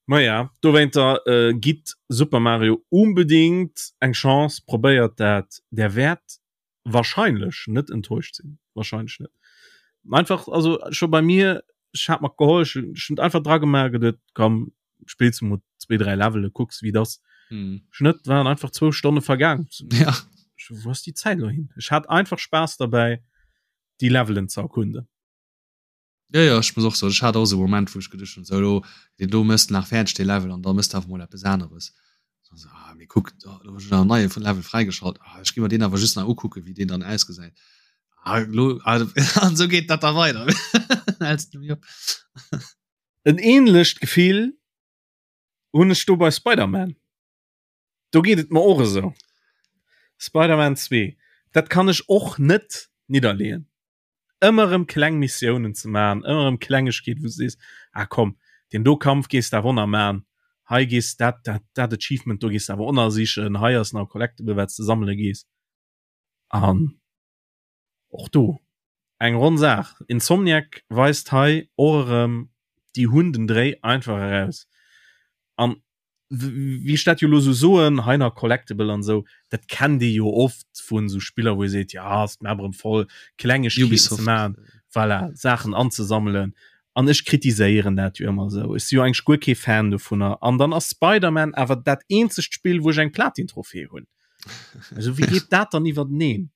Maja, dowéinter äh, gitt Super Mario unbedingt eng Chance, probéiert dat, der wäert wahrscheinlech net enttäuscht sinn, wahrscheinlech net. Einfach also scho bei mir, ech hat mer geholl, ech hunn einfach dra gemaach, geduet komm spills du mol zwee dräi Levele, kucks wéi et ass.
Hm.
Schnëtt waren einfach zwou Stonne vergaang.
Ja.
Wou ass déi Zäit elo hin? Ech hat einfach Spaass derbäi déi Levelen ze erkunden.
Ja, ja, ech muss och soen, ech hat och esou e Moment, wou ech geduecht hunn, sou elo, deen do mëss de nach fäerdeg, dee Level, an da mëss de awer mol eppes aneres. Dann sou, ah, mee kuck, do hunn ech nach en neie Level fräigeschalt, ah, ech gi mer deen awer just nach ukucken, wéi deen dann ausgesäit. Ah, elo, ah, an esou geet dat da weider. Häls du méi op.
En ähnlecht Gefill hunn ech do bei Spider-Man. Do geet et mer och esou. Spider-Man 2, dat kann ech och net nidderleeën. ëmmer erëm kleng Missiounen ze man, ëmmer erëm Klengegkeet wou du sees, ah komm, deen do Kampf gees de awer och nach man, hei gees dat dat dat Achievement do gees de awer och nach sichen, hei ass nach e Collectible wat s de sammele gees. An och do eng ronn Saach. Insomniac weist hei och erëm, déi hunn den Dréi einfach eraus. An. Wéi ech dat jo elo sou soen, hei nach Collectible an esou, dat kennt ee jo oft vun esou Spiller, wou ee seet, jo ass d'Map erëm voll, Klengegkeeten ze maachen, voilà, Saachen anzesammelen. An ech kritiséieren dat jo ëmmer esou. Ech si jo eigentlech guer kee Fan dovunner. An dann ass Spider-Man awer dat eenzegt Spill, wou ech eng Platin-Trophée hunn. Also wéi geet dat dann iwwerteneen?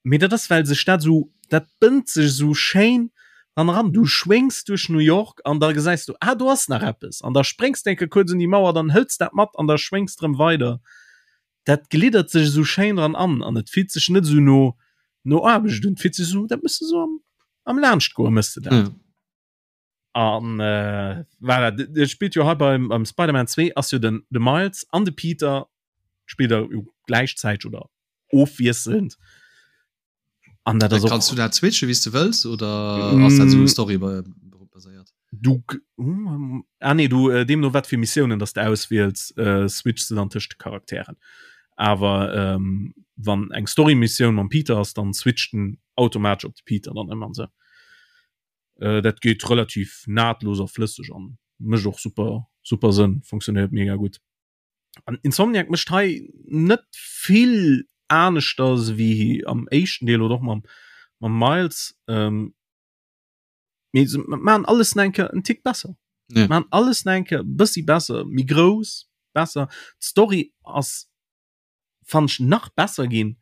Mee dat ass well sech dat esou, dat bënnt sech esou schéin dann eran. Du schwéngs duerch New York an da gesäis du, ah do ass nach eppes an da spréngs de eng Kéier kuerz un déi Mauer, dann hëls dat mat an da schwéngs de rëm weider. Dat gliddert sech esou schéin dran an an et fillt sech net esou no no Aarbecht un. Et fillt sech esou, dat méchs de esou am am Laanschtgoe méchs de dat. Ja. An äh, voilà, de spillt jo hei beim, beim Spider-Man 2 ass jo den de Miles an de Peter spillt er jo gläichzäiteg oder ofwiesselnd.
An dat ass och. Kanns du dat switchen wéi s de wëlls oder ass dat esou Story baséiert?
Du ah nee du äh, deemno wat fir Missiounen dass de auswiels äh, switchs du dann tëscht de Charakteren. Awer ähm, wann eng Story-Missioun mam Peter ass, dann switcht den automatesch op de Peter dann ëmmer an sou. Äh, dat geet relativ nahtlos a flësseg an mécht och super super Sënn, funktionéiert mega gutt. An Insomniac mécht hei net vill aneschters wéi am éischten Deel oder och mam mam Miles. Ähm, mee se maachen alles nach eng Kéier en Tick besser. Ja. Maachen alles nach eng Kéier e bëssi besser, méi grouss, besser. D'Story ass fannen ech nach besser ginn.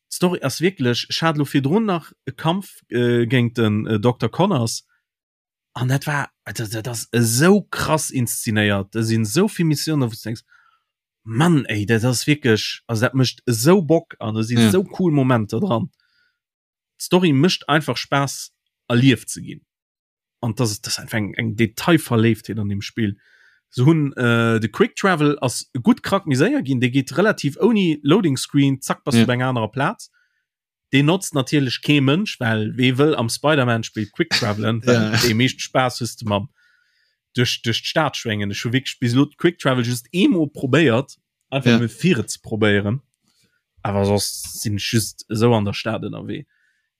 D'Story ass wierklech, ech hat elo virdrun nach e Kampf äh, géint den äh, Dokter Connors an dat war dat, dat ass esou krass inszenéiert. Da sinn esou vill Missiounen, wou du denkst, Mann ey, dat ass wierklech, also dat mécht esou Bock an do sinn ja. esou cool Momenter dran. D'Story mécht einfach Spaass erlieft ze ginn. An das, das einfach eng, eng Detailverléiftheet an dem Spill. Se hunn äh, de Quick Travel ass gutt krack méi séier ginn, dee geet relativ ouni Loading Screen, zack bass ja. du bei enger anerer Plaz. Deen notzt natierlech kee Mënsch, well wee wëll am Spider-Man-Spill Quick Travelen, well ja. dee meescht Spaass hues de mam duerch, duerch d'Stad schwéngen. Ech hu wierklech bis elo Quick Travel just eemol probéiert, einfach ja. fir et ze probéieren. Awer soss sinn ech just esou an der Stad ënnerwee.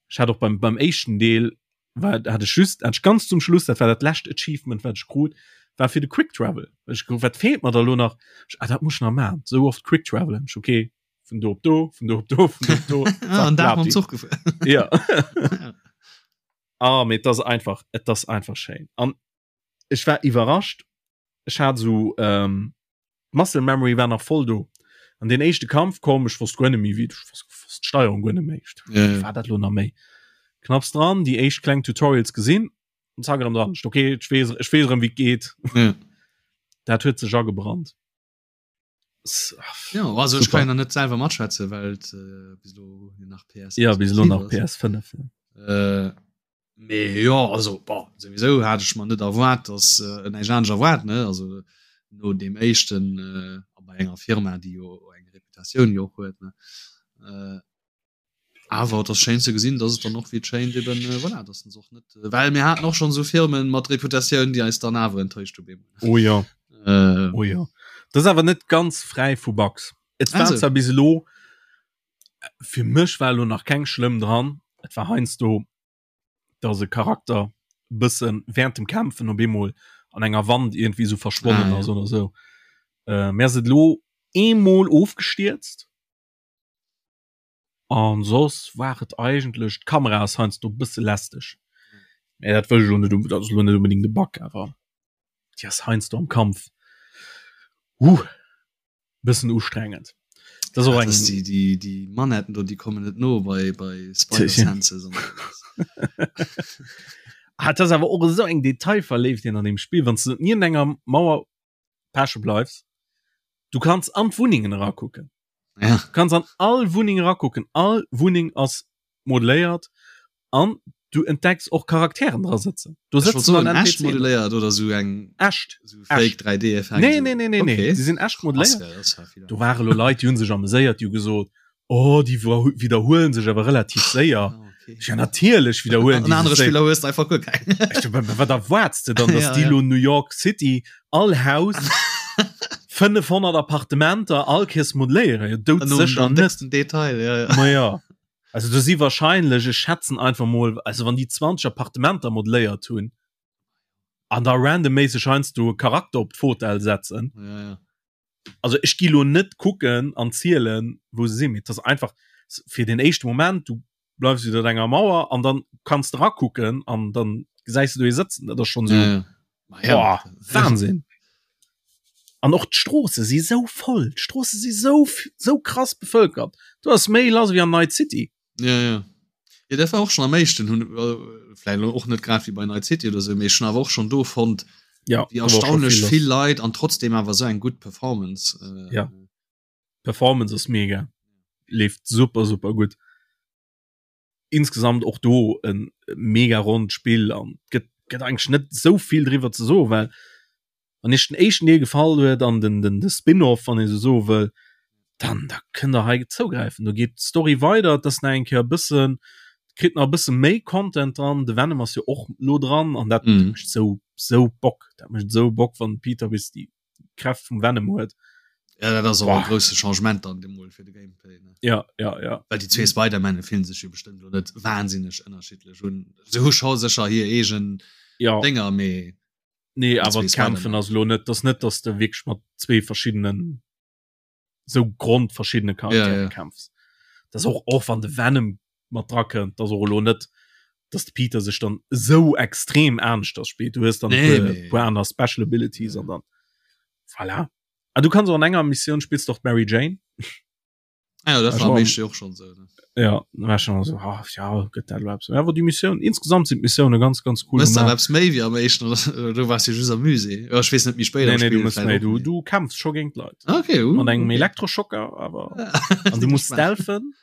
Ech hat och beim, beim éischten Deel war hat ech just hat ech ganz zum Schluss, dat war dat lescht Achievement wat ech krut, war fir de Quick Travel. Ech gouf wat feelt mer da lo nach? Ech, ah, dat muss ech nach maachen. Sou oft Quick Travelen. Ech, okay, vun do op do, vun do op do, vun do op do.
Ah, an Dag mam Zuch gefuer.
Ja. Ah, mee et ass einfach, et ass einfach schéin. An ech war iwwerrascht, ech hat esou ähm, d'Muscle Memory war nach voll do. An den éischte Kampf komm, ech wosst guer net méi wéi, ech wosst, wosst d'Steierung guer net méi. Ech dacht, wéi war dat lo nach méi? Knapps dran, déi éischt kleng Tutorials gesinn, an zack erëm dran. Ech, okay, ech weess, ech weess erëm wéi et geet.
Ja.
Dat huet sech agebrannt.
Ja, also ech kann ja net selwer matschwätze, well et äh, bis lo nach
PS Ja, bis lo nach PS5.
Ja. Äh, mee ja, also boah, sowieso hat ech mer net erwaart, dass äh, näischt anescht erwaart, ne? Also no deem éischten äh, a bei enger Firma, déi jo eng Reputatioun jo och huet, ne? Äh, Awer et ass schéin ze gesinn, dass et dann och wéi et schéint eben, voilà, dass se och net, well mir haten och schonn esou Firmen mat Reputatioun, déi eis dann awer enttäuscht hu bemol.
Oh jo. Äh. Oh jo. Dat ass awer net ganz fräi vu Bugs. Et war zwar bis elo, fir mech war elo nach keng schlëmm dran, et war heiansdo, dass e Charakter bëssen während dem Kämpfen op eemol an enger Wand iergendwéi esou verschwonnen ah, ass ja. oder esou. Äh, mir ass et elo eemol ofgestierzt. An soss war et eigentlech, d'Kamera ass heiansdo e bësse lästeg. Mä dat wëll ech elo net, dat ass elo net unbedingt e Bug, awer déi ass heiansdo am Kampf huh bëssen ustrengend.
Dat ass och eng. Déi, déi, déi Manetten do, déi kommen net no bei, bei Spider Senses an
Ah, dat ass awer och esou eng Detailverléiftheet an deem Spill, wann s de niewent enger Mauer peche bleifs, du kanns an d'Wunnengen erakucken.
Ja.
Du kanns an all Wunneng erakucken. All Wunneng ass modelléiert an du entdecks och Charakteren dra sëtzen.
Do sëtzen dann echt modelléiert oder sou eng
echt
sou fake 3D
Effekt. Nee, nee, nee, nee, nee. Okay. Déi sinn echt modelléiert. Do ware lo Leit, déi hunn sech ameséiert, déi hu gesot, Oh, déi widderhuelen sech awer relativ séier. Ah, okay. Ja, natierlech
widderhuelen déi sech séier. Spiller hues einfach guer
keng. Wat erwaarts de dann, dass ja, déi lo New York City all Haus 500 Appartementer all Kees modelléieren?
Ja, doudsécher net. Detail, ja,
ja. Ma ja. Also do si wahrscheinlech, ech schätzen einfach mol, also wann déi 20 Appartementer modelléiert hunn an da randomméisseg heiansdo e Charakter op d'Fotell setzen.
Ja, ja.
Also ech gi lo net kucken an zielen, wou se sinn, mee et ass einfach fir den éischte Moment, du bleifs iwwer enger Mauer an dann kanns de rakucken an dann gesäis du do ee sëtzen. Dat ass schonn esou. Ja, ja. Ja. Boah, Wahnsinn. An och d'Stroosse si sou voll. D'Stroosse si sou, sou krass bevëlkert. Do ass méi lass wéi an Night City.
Ja, ja. Ja, dat war och schon am éischten hunn äh, vläicht lo och net grad wéi bei Night City oder sou, mee ech hunn awer och schon do fonnt,
Ja,
wéi
do war schon
erstaunlech
vill lass.
vill Leit an trotzdem awer sou eng gutt Performance. Äh,
Ja. Performance ass mega. Leeft super, super gutt. Insgesamt och do en mega ronnt Spill an gëtt gëtt eigentlech net sou vill driwwer ze soen, well wann iech den éischten Deel gefall huet an den den de Spin-off, wann ee sou soe wëll, dann da kënnt der hei zougräifen. Do geet d'Story weider, et ass nach eng Kéier e bëssen, kritt nach e bësse méi Content dran. De Venom ass jo och lo dran an dat mm. mécht sou sou Bock. Dat mécht sou Bock, wann Peter bis déi Kräft vum Venom huet.
Ja, dat ass och e grousse Changement dann deemol fir de Gameplay. Ne?
Ja, ja, ja.
Well déi zwee Spider-Manne fillen sech jo bestëmmt lo net wahnsinneg ënnerschiddlech un. Se hu scho sécher hir eegen
ja.
Dénger, mee
Nee, awer d'Kämpfen ass lo net, dass net, dass de wierklech mat zwee verschiddenen sou grondverschiddene Charakteren ja, ja. kämpfs. Das och och wann de Venom mat dra kënnt, dass och lo net, dass de Peter sech dann sou extrem aneschters spillt. Du hues dann nee, nee. puer aner Special Abilities an dann voilà. Ah, du kannst och an enger Missioun spillst doch Mary Jane.
Ah, ja, dat war am éischte och schon sou. Ne?
Ja, war schon so ah, ja, gëtt dat überhaupt so. Ja, awer déi Missioun insgesamt sind d'Missioune ganz ganz cool.
Mëss da eppes méi wéi am éischten oder du warst jo just am Musée. Ja, ech weess net méi spéider.
Nee, nee, du mëss méi, du, du kämpfs scho géint Leit.
Okay, uh,
Mat engem
okay.
Elektroschocker, awer an du musst stealthen.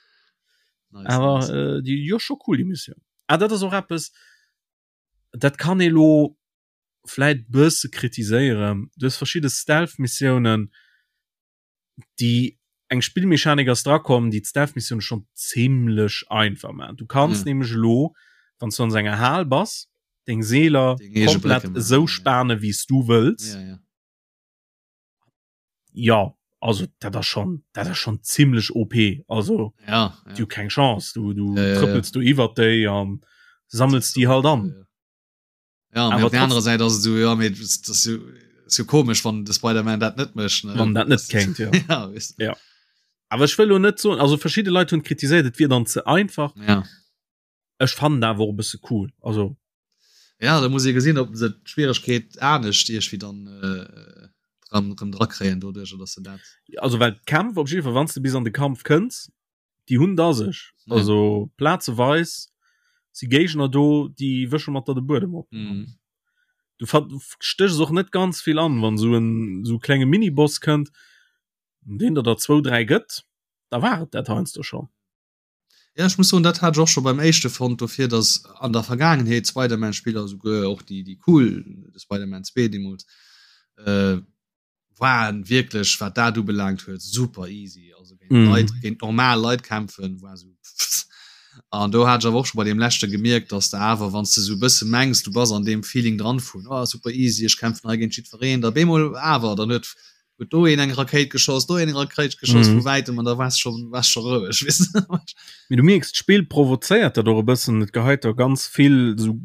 Nice,
Awer
nice.
äh, déi jo scho cool déi Missioun. Ah, dat ass och eppes, dat kann ee lo vläit bësse kritiséieren. Du hues verschidde Stealth-Missiounen, déi eng Spillmechanik ass drakomm, déi d'Stealth-Missioune schonn zimlech einfach maachen. Du kanns
Ja.
nämlech elo, wann s du an esou enger Hal bass, deng Seeler
Deng eege
komplett
Brécke maachen,
esou
ja.
spane wéi s du wëlls.
Ja, ja.
Ja, also dat ass schonn, dat ass schonn zimlech OP. Also
Ja, ja.
du keng Chance, du, du
Ja, ja, ja.
trëppels du iwwert déi an sammels déi halt an.
Ja, Ja,
Awer
op der anderer Säit ass et so, ja, mee das ass jo, ass jo komesch, wann de Spider-Man dat net mécht. Ne?
Wann dat net kéint, ja.
ja, weißt du.
Ja. Awer ech wëll lo net soen, also verschidde Leit hunn kritiséiert, et wier dann ze einfach.
Ja.
Ech fannen dat awer och e bësse cool. Also
Ja, da muss ee gesinn, ob se d'Schwieregkeet anescht iergwéi dann äh, dran, rëm drakréien doduerch, dass se dat.
also well d'Kämpf op jidde Fall, wann s de bis an de Kampf kënns, déi hunn da sech.
Ja.
Also plazeweis si Géigner do, déi wësche mat der de Buedem op.
Mhm.
Du stéchs och net ganz vill an, wann sou en sou klenge Miniboss kënnt, deen der der zwou, dräi gëtt, da war et dat heiansdo schon.
Ja, ech muss soen, dat hat ech och scho beim éischte fonnt, dofir dass an der Vergaangenheet Spider-Man-Spiller, souguer och déi, déi cool, de Spider-Man 2 deemools, äh, waren wierklech wat dat ubelaangt huet super easy also géint mm. Leit géint normal Leit kämpfen war so an do hat awer och schon bei dem leschte gemierkt dass de awer wann du so bësse mengs du bass an dem Feeling dran vun oh, super easy ech kämpfen hei géint jiddwereen da bemol awer dann huet huet do een eng Rakéit geschoss do een eng Rakéit geschoss mm. vu wäitem an da wars schon wars schon roueg weess de
Mee du mierks d'Spill provozéiert dat och e bëssen et geheit der ganz vill sou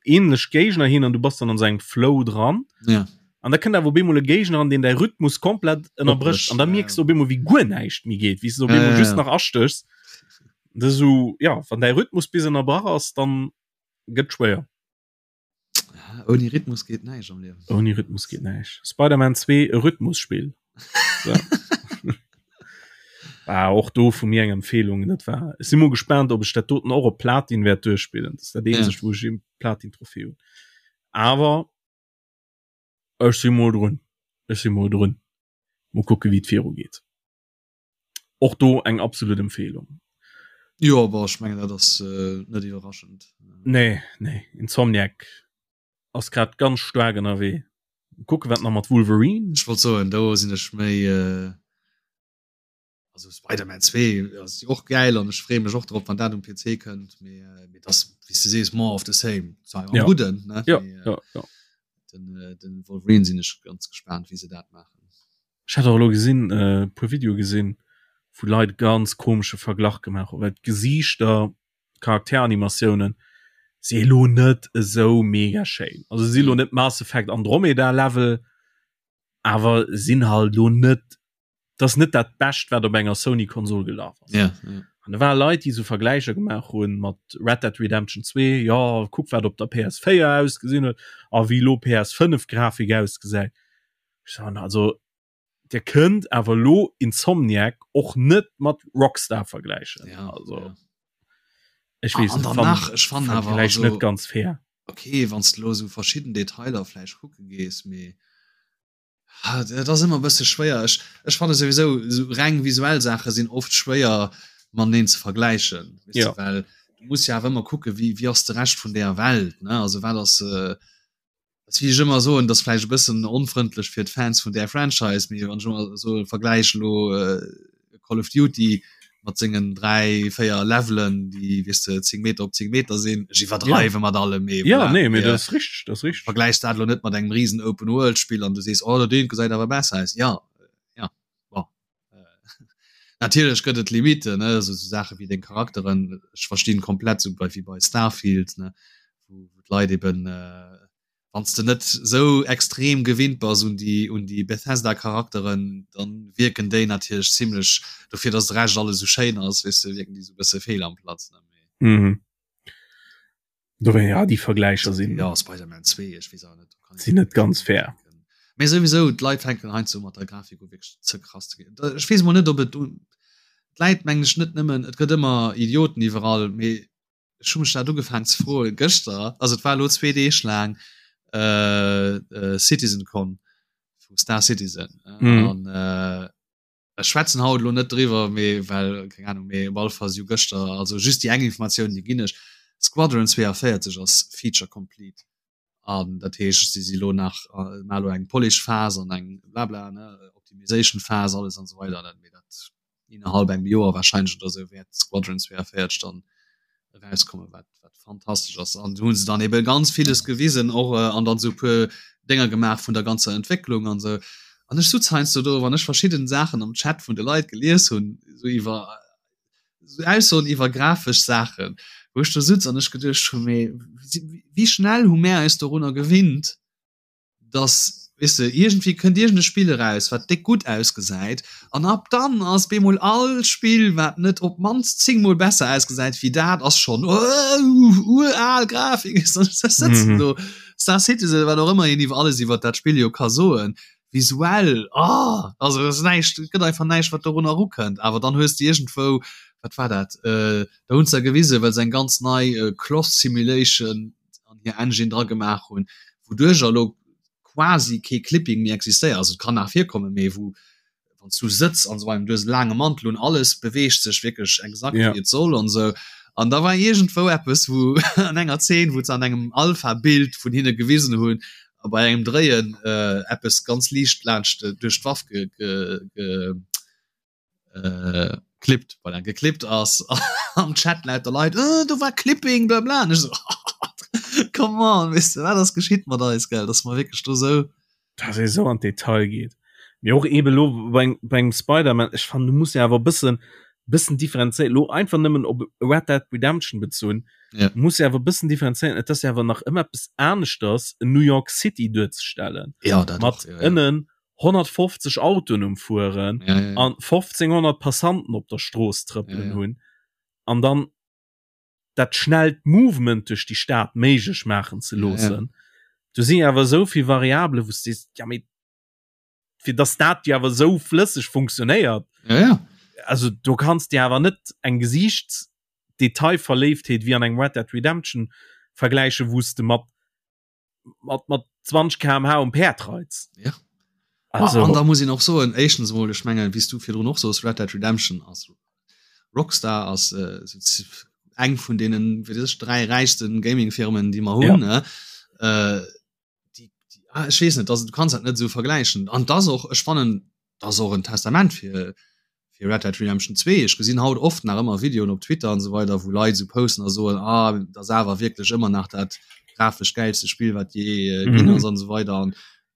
ähnlech Géigner hin an du bass dann an sengem Flow dran.
Ja.
An da kënnt awer op eemol e Géigner an deen däi Rhythmus komplett ënnerbrécht an da mierks du op eemol wéi guer näischt méi geet, wéi s du op eemol ja, just nach astéchs. Dat so ja, wann däi Rhythmus bis ënnerbrach ass, dann gëtt schwéier.
Ouni Rhythmus geet näischt am Liewen.
Ouni Rhythmus geet näischt. Spider-Man 2 e Rhythmusspill. So. ah, och do vu mir eng Empfehlung dat war ech si mol gespaant ob ech dat doten och op Platin wäert duerchspillen dat ass dat eenzegt ja. wou ech e Platin Trophée hunn awer ech si mol drun ech si mol drun mol kucke wéi et viru geet och do eng absolut Empfehlung
Jo awer ech mengen dat ass äh, net iwwerraschend
nee nee Insomniac ass grad ganz staark ënnerwee. Kucke wat nach mat Wolverine.
Ech wollt soen do sinn ech méi äh, also Spider-Man 2 ass och gäil an ech freeë mech och drop wann dat um PC kënnt mee äh, mee das wéi s de sees more of the same zwar am
Ja.
gudden ne
Ja,
mee, äh,
ja, ja.
den, äh, den Wolverine sinn ech ganz gespaant wéi se dat maachen.
Ech hat och elo gesinn äh, puer Videoe gesinn wou Leit ganz komesche Verglach gemaach hunn, well d'Gesiichter Charakteranimatiounen si elo net esou mega schéin. Also si lo net Mass Effect Andromeda Level. Awer sinn halt lo net, dat ass net dat Bescht, wat op enger Sony-Konsol gelaf ass.
Ja, ja.
An da ware Leit, déi sou Vergläicher gemaach hunn mat Red Dead Redemption 2, jo, kuck wat op der PS4 ausgesinn huet a wéi lo PS5 Grafik ausgesäit. Ech soen, also Dir kënnt awer lo Insomniac och net mat Rockstar vergläichen.
Ja,
also
ja.
ech weess
ah,
net,
nach, ech fannen awer
also, net ganz fair.
Okay, wann du lo sou verschidden Detailer vläicht kucke gees, mee ah, dat ass ëmmer e bësse schwéier. Ech, ech fanne souwisou sou reng visuell Saache sinn oft schwéier mateneen ze vergläichen, weess
Ja.
du, well du muss jo awer ëmmer kucke wéi, wéi ass de Rescht vun deeër Welt, ne? Also wat ass äh, Ass wéi ech ëmmer soen, dat ass vläicht e bëssen onfrëndlech fir d'Fans vun där Franchise, mee wann ech ëmmer soe vergläich elo Call of Duty mat sengen 3, 4 Levelen, déi weess de 10 Meter op 10 Meter sinn, ech iwwerdreiwe mat allem, mee
Ja,
voilà,
nee, mee
mee
dat ass richteg, dat ass richteg.
vergläichs dat elo net mat engem risen Open-World-Spill an du sees, oh dat eent gesäit awer besser aus. Ja, ja, bon. Natierlech gëtt et Limiten, ne, esou Saache wéi deng Charakteren, ech verstinn komplett, esou bei wéi bei Starfield, ne, wou wou d'Leit eben, wann s de net esou extrem gewinnt bass un déi un déi Bethesda-Charakteren, dann wierken déi natierlech zimlech, dofir datt de Rescht alles esou schéin ass, weess de, wierken déi esou e bësse fehl am Platz, ne, mee.
Mhm. Dofir, ja, déi Vergläicher sinn.
Ja, Spider-Man 2, ech weess awer net.
Sinn net ganz fair.
Mee souwisou, d'Leit fänken heiansdo mat der Grafik u wierklech ze krass ze ginn. Ech weess mol net, ob et un d'Läit mengen ech net nëmmen, et gëtt ëmmer Idioten iwwerall, mee ech hu mech dat ugefaangen ze froen gëschter, also et war elo zwee Deeg laang CitizenCon vu Star Citizen an Ech schwätzen haut elo net driwwer, mee well, keng Ahnung, mee op alle Fall si jo gëschter, also just déi eng Informatioun, déi ginn ech, Squadron 42 ass Feature complete an dat heescht, si si lo nach, maache lo eng Polish Phas an eng blabla, ne, Optimization Phas, alles an esou weider, mee dat innerhalb engem Joer wahrscheinlech oder esou wäert Squadron 42 dann erauskommen, wat, wat fantastesch ass. An do hunn se dann eben ganz villes gewisen och äh, an dann so puer Dénger gemaach vun der ganzer Entwécklung an sou. An ech sutz heiansdo do, wann ech verschidden Saachen am Chat vun de Leit gelies hunn, sou iwwer sou Aussoen iwwer grafesch Saachen, wou ech do sutz an ech geduecht hunn, mee wéi schnell hu mär eis dorunner gewinnt, dass, weess de, iergendwéi kënnt iergend e Spill eraus, wat déck gutt ausgesäit, an ab dann ass bemol all Spill, wat net op d'mannst 10 mol besser ausgesäit wéi dat, ass schonn ural Grafik. Ech sëtzen do, Star Citizen, wat och ëmmer een iwwer alles iwwer dat Spill jo ka soen, visuell, oh, also et ass näischt, et gëtt einfach näischt, wat dorunner erukënnt. Awer dann hues de iergendwou, wat war dat, da hunn se da gewisen, well se eng ganz nei Cloth Simulation an hir Engine dra gemaach hunn, wouduercher elo quasi kee Clipping méi existéiert. Also et kann nach virkommen, mee wou wann s du sëtz an esou weider, du hues e laange Mantel un, alles beweegt sech wierklech exakt wéi et soll an esou. An da war iergendwou eppes, wou an enger Zeen, wou se an engem Alpha-Bild vun hinne gewisen hunn, a bei engem Dréien eppes ganz liicht laanscht duerch d'Waff ge ge äh, klippt voilà, geklippt ass am Chat lauter Leit äh, do war Clipping bla bla und ich so, come on weißt du, wat ass geschitt mat eis gell dass mer wierklech do sou
dass ee sou an d'Detail geet. Mee och eben elo bei bei engem Spider-Man, ech fannen du muss jo awer e bëssen bëssen differenzéieren, elo einfach nëmmen op Red Dead Redemption bezunn,
Ja.
muss jo awer e bëssen differenzéieren, et ass jo awer nach ëmmer eppes aneschters en New York City duerzestellen
Ja, dat
mat
och, ja, ja.
ënnen 150 Autoen um Fueren
ja, ja, ja.
an 1500 Passanten op der Strooss trëppelen
ja, ja.
hunn an dann dat schnellt Movement duerch déi Stad méiglech maachen ze loossen.
Ja, ja.
Do sinn awer esou vill Variabelen, wou s du sees, ja mee fir dass dat jo awer esou flësseg funktionéiert.
Ja, ja.
Also do kanns de awer net eng Gesiichtsdetailverléiftheet wéi an engem Red Dead Redemption vergläichen, wou s de mat mat mat 20 kmh um Päerd reits.
Ja. Also, an da muss een och soen, éischtens emol, ech mengen, wéi s du virdrun och soos, Red Dead Redemption ass Rockstar ass äh, eng vun deenen wéi sech dräi räichsten Gaming-Firmen, déi mer hunn.
Ja.
Ne? Äh, déi, déi, ah, ech weess net, also, du kanns dat net esou vergläichen. An dat ass och, ech fannen, dat ass och en Testament fir fir Red Dead Redemption 2. Ech gesinn haut oft nach ëmmer Videoen op Twitter an esou weider, wou Leit esou posten a soen, ah, dat ass awer wierklech ëmmer nach dat grafesch gäilste Spill, wat jee ginn
Mhm.
ass an esou weider. An